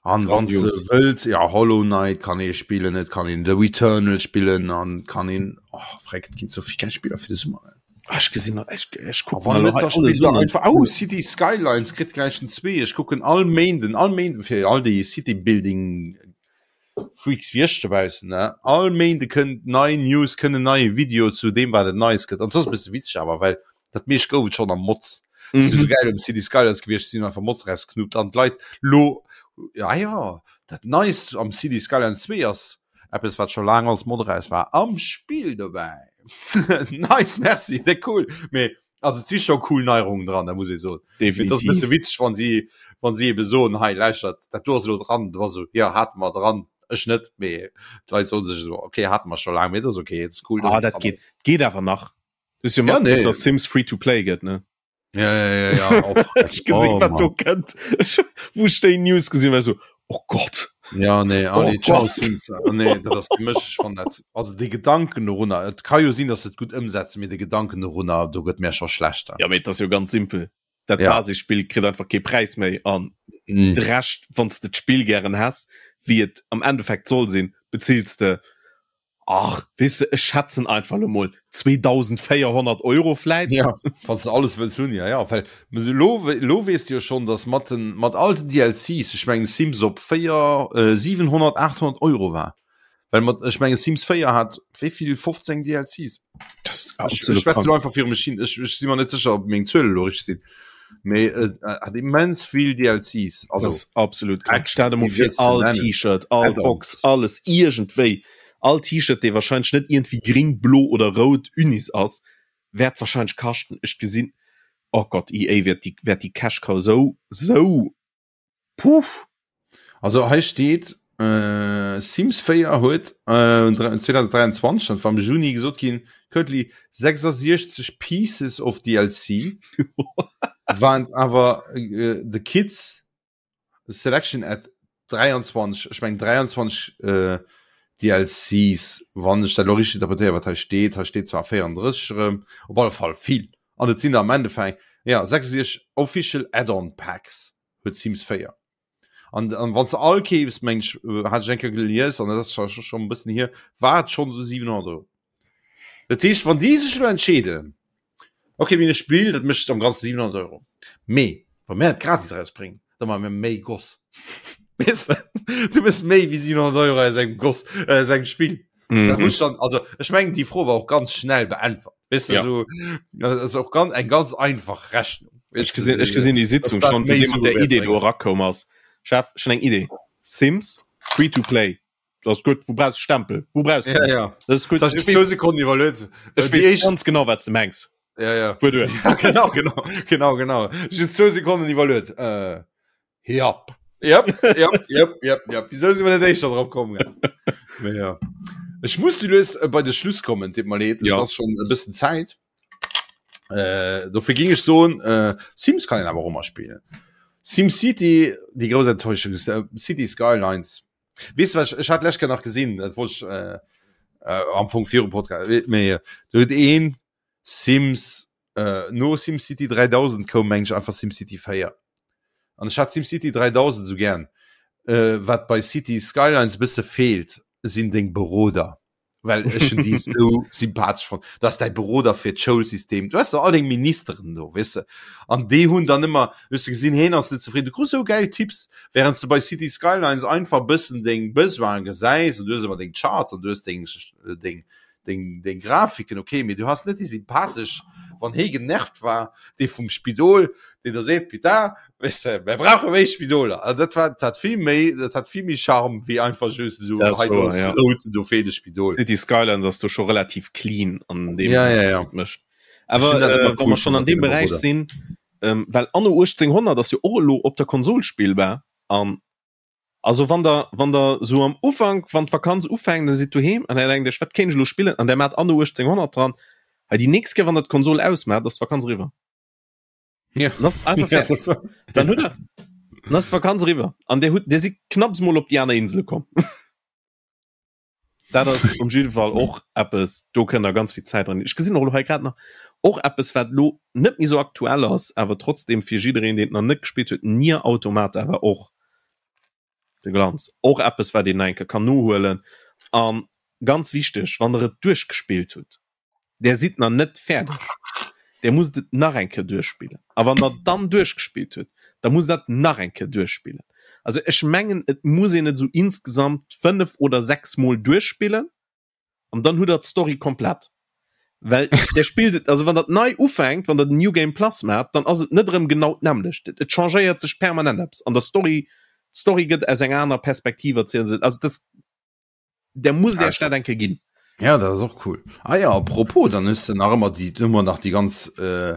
An wann du wëlls ja Hollow Knight kann ee spillen, et kann een The Returnal spillen an kann een oh, freck, et ginn so vill geil Spiller fir de Summer. Ah, ech gesinn ech, ech kucken Wann net, da spillt der einfach oh, City Skylines kritt gläich den 2. Ech kucken all Méinden, all Méinden fir all déi City Building Freaks wéi ech dobaussen, ne? All Méinde kënnt nei News, kënnt en neie Video zu deem wat et Neies gëtt. An dat ass e bësse witzeg awer, well dat meescht gouf et schonn am Mods. Mhm. So geil um City Skylines gewiescht sinn einfach Mods rausknuppt an d'Leit lo ja ja dat Neist am City Skylines 2 ass eppes wat scho laang als Mod raus war am Spill dobäi. nice, merci, de cool. Mee also et si scho cool Neierungen dran, da muss ee soen. Definitiv. Dat ass e bësse witzeg, wann si wann si ebe soen, hei lauschtert, dat do ass elo dran, du bass esou, ja hate mer dran, ech net, mee d'Leit soen sech esou, okay, hate mer scho laang, mee dat ass okay, dat ass cool. Ah, dat geet geet awer nach. Ist jo ja, nee. dass Sims free to play gëtt ne ja, ja, ja, ja. Oh, gesinn, oh, wat do kënnt wo déi News gesinn war so oh Gott ja nee oh, nee, ciao, Sims. Oh, nee, dat ass mech van dat also de Gedanken dorunner et kann jo sinn dass et gut ëmsetzen mir de Gedanken dorunner do gëtt mir scho schlechter ja mee dat ass jo ganz simpel dat ja. Basisspill kritt einfach kee Präis méi an mm. de Rescht wann s de d'Spill gären häss wéi et am Endeffekt soll sinn bezills de Ach, weess de, ech schätzen einfach lo mol 2400 Euro vläit. Ja, wann s de alles wëlls hunn, ja, ja. Well elo, elo weess de jo schonn, datt mat den, mat all den DLCs, ech mengen Sims op 4, 700, 800 Euro war. Well mat, ech mengen Sims 4 hat wéi vill, 15 DLCs? Das ist Ech, ech absolut schwätze krank. elo einfach viru mech hin, ech, ech si mer net sécher, ob meng Zuele elo richteg sinn. Mee et hat immens vill DLCs, Das also ist absolut krank. echt, Stell dir mol wéi vir, wëlls de all nennen? T-Shirt, all Box, Add-ons. alles iergendwéi, all T-Shirt, dee wahrscheinlech net iergendwéi gring, blo oder rout Unis ass, wäert wahrscheinlech kaschten, ech gesinn, oh Gott, EA wäert déi, wäert déi Cash Cow sou, sou Puh. Also hei steet äh, Sims 4 huet äh, 2023 dat war am Juni gesot ginn currently 66 pieces of DLC waren awer äh, the kids selection at 23 ech meng 23 äh, DLCs wann ech dat lo richteg interpretéieren wat hei steet hei steet zwar 34 erëm op alle Fall vill an et sinn der am Endeffekt ja 66 official Add-on Packs huet Sims 4 an an wann se all keefs meng ech äh, hat ech eng Kéier gelies an dat ass scho scho e bëssen hier war et schonn esou 700 Euro dat heescht wann déi sech elo entscheeden okay mir hunn e Spill dat mécht am ganze 700 Euro mee wa mir et gratis erausbréngen da maache mir méi Goss weess de du méchs méi wéi 700 Euro aus engem Goss äh, aus engem Spill mhm. dat muss dann also ech mengen déi Fro war och ganz schnell beäntwert weißt du, Ja. so, das ist auch ganz eng ganz einfach Rechnung Ech gesinn, ech gesinn déi Sitzung dat schon, wou méi dee mat der Sue Idee do wäert erakoum ass. Chef, ech hunn eng Idee. Sims, free to play. Dat ass gutt. Wou brauchs de Stempel? Wou brauchs de Ja, dat? ja. Dat ass gutt. Das Ech zwei weess, Sekunden iwwerluet. ech Äh, déi weess éischt- ganz genau, wat s de mengs. Ja, ja. Fuer duer. Ja, genau, genau, genau, genau. Just zwou Sekonnen iwwerluet. Äh, Jap. Jap, jap, jap, jap, jap. Wieso si mer net éischter drop komm? Mee ja. Ech muss du lues äh, bei de Schluss kommen, deet mer leed. Ja. Et ass schon e bëssen Zäit. Äh, dofir ging ech soen, äh, Sims kann een awer och ëmmer spillen. SimCity, déi grouss Enttäuschung, äh, City Skylines. Weess du wat, ech, ech hat lech Kéier nach gesinn, dat wollt ech äh, äh, am Fong virum Podcast, mee do huet een Sims äh, no SimCity 3000 koum meng ech einfach SimCity 4. An ech hat SimCity 3000 sou gern. Äh, wat bei City Skylines e bësse feelt, sinn deng Beroder. Well ech hunn déi sou sympathesch fonnt. Du has däi Beroder fir d'Schoulsystem, du has do all deng Ministeren do, weess de. An déi hunn dann ëmmer, du hues gesinn, heen ass net zefridden, du krus sou gäil Tipps, während s de bei City Skylines einfach bëssen deng Besoine gesäis an du hues ëmmer deng Charts an du hues deng, deng. Deng, deng Grafiken, okay, mee du has net déi sympathesch, wann hee genervt war, dee vum Spidol, deen da seet, Putain, weess de, mir brauche méi Spidoler. Also dat war, dat hat vill méi, dat hat vill méi Charme wéi einfach just esou, Dat ass hei do wouer, ass ja. rout, do feelt e Spidol. City Skylines ass do scho relativ clean an deem Ja, ja, ja. wat et mécht. Ech Awer hunn dat äh, ëmmer wa cool mer schonn fonnt an mat deem deene Beräich Roboter. sinn, ähm, well Anno 1800 ass jo och elo op der Konsol spillbar an Also wann der wann der sou am Ufank wann d'Vakanz ufänkt der sidd doheem an der denkt iech wat kéint ech elo spillen an der maacht Anno 1800 dran, hei déi nächst Kéier wann der d'Konsol ausmaacht ass d'Vakanz eriwwer. Ja. Dann ass einfach Ja, fäerdeg. das war, Dann hutt der dann ass d'Vakanz eriwwer an der hutt der sidd knapps mol op déi aner Insele komm. Dat ass um jidde Fall och eppes, do kënnt der ganz vill Zäit dran. Ech gesinn och elo hei grad nach och eppes, wat elo net méi sou aktuell ass, awer trotzdem fir jiddereen, deen et nach net gespillt huet, Nier Automata war och de Glanz. Och eppes, wat een nach eng Kéier kann nohuelen. A ganz wichteg, wann der et duerchgespillt hutt, Der sidd nach net fäerdeg, Der musst et nach eng Kéier duerchspillen. A wann Der dann duerchgespillt hutt, da musst Der et nach eng Kéier duerchspillen. Also ech mengen, et muss een et esou insgesamt fënnef oder sechs Mol duerchspillen an dann hutt Der d'Story komplett. Well Der spillt et, also wann Der et nei ufänkt, wann Der den New Game Plus maacht, dann ass et net erëm genau d'nämmlecht. Et changéiert sech permanent eppes an der Story. D'Story gëtt aus enger anerer Perspektiv erzielt. Also dat der muss der Stadt enke ginn. Ja dat ass och cool. Ah ja apropos dann hues de nach ëmmer déi ëmmer nach déi ganz äh,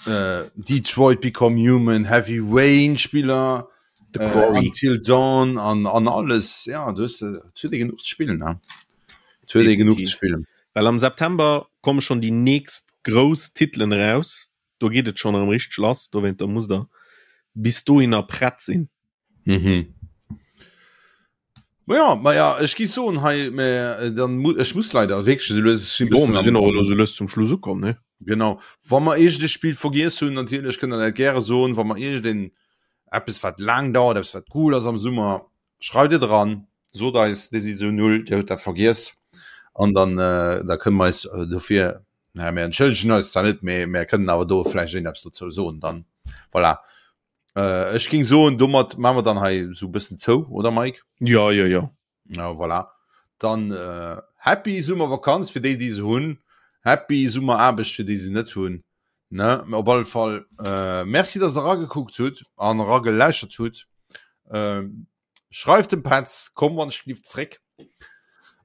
äh, Detroit Become Human, Heavy Rain Spiller, The äh, Quarry. Until Dawn an an alles ja du hues äh, et huet ee genuch ze spillen ne? Et huet ee genuch ze Definitiv. spillen. Well am September komme schon déi nächst grouss Titelen eraus. Do geet et schon erëm richteg lass. Dowéinter musst der bis dohinner prett sinn. Mhm. Ma ja, ma ja, ech gi soen hei mä äh, dann mu ech muss leider wierklech esou lues ech sinn Bon, bëssen mir am sinn och elo esou lues zum Schluss ukomm, ne? Genau. Wa mer iergend e Spill vergiess hunn, natierlech kënnt der dat gäre soen, wa mer iergend een eppes wat laang dauert, eppes wat cool ass am Summer, schreift et eran, sot eis, dir sidd esou null, dir hutt dat vergiess an dann äh, da kënne mer eis äh, dofir, naja, mir entschëllegen eis zwar net, mee mir kënnen awer do vläicht iergend eppes dozou soen dann. Voilà. Äh, ech ging soen, domat machen wir dann hei so bëssen zou, oder Mike? Ja, ja, ja. Ja, voilà. Dann äh, happy Summervakanz fir déi, déi se hunn. Happy Summeraarbecht fir déi se net hunn. Ne? Op alle Fall äh, merci, dass der ragekuckt hutt an rageläuschert hutt. Äh, Schreift dem Petz, komm wann ech lief zréck.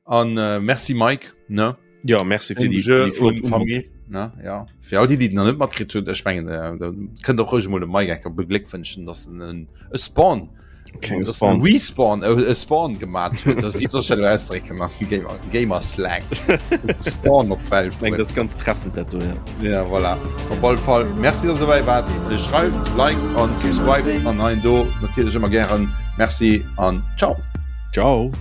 An äh, merci Mike, ne? Ja, merci fir déi, déi flott Famille, ne? Ja. Fir all déi, déi nach net matkritt hunn, ech mengen, äh, da kënnt och ruhig mol de Mike enker begléckwënschen, dass en en e Spawn Klenge dass Spawn. en Respawn, e, e Spawn gemat huet. Also, wéi soll ech dat elo ausdrécken am Gamer, Gamer Slang? Spawn op d'Welt Ich meng, das ist ganz treffend dat do, ja. Ja, voilà. Op alle Fall, merci, dass der dobäi waart. Schreift, liked an subscribed an hei an do natierlech ëmmer gären. Merci an ciao. Ciao.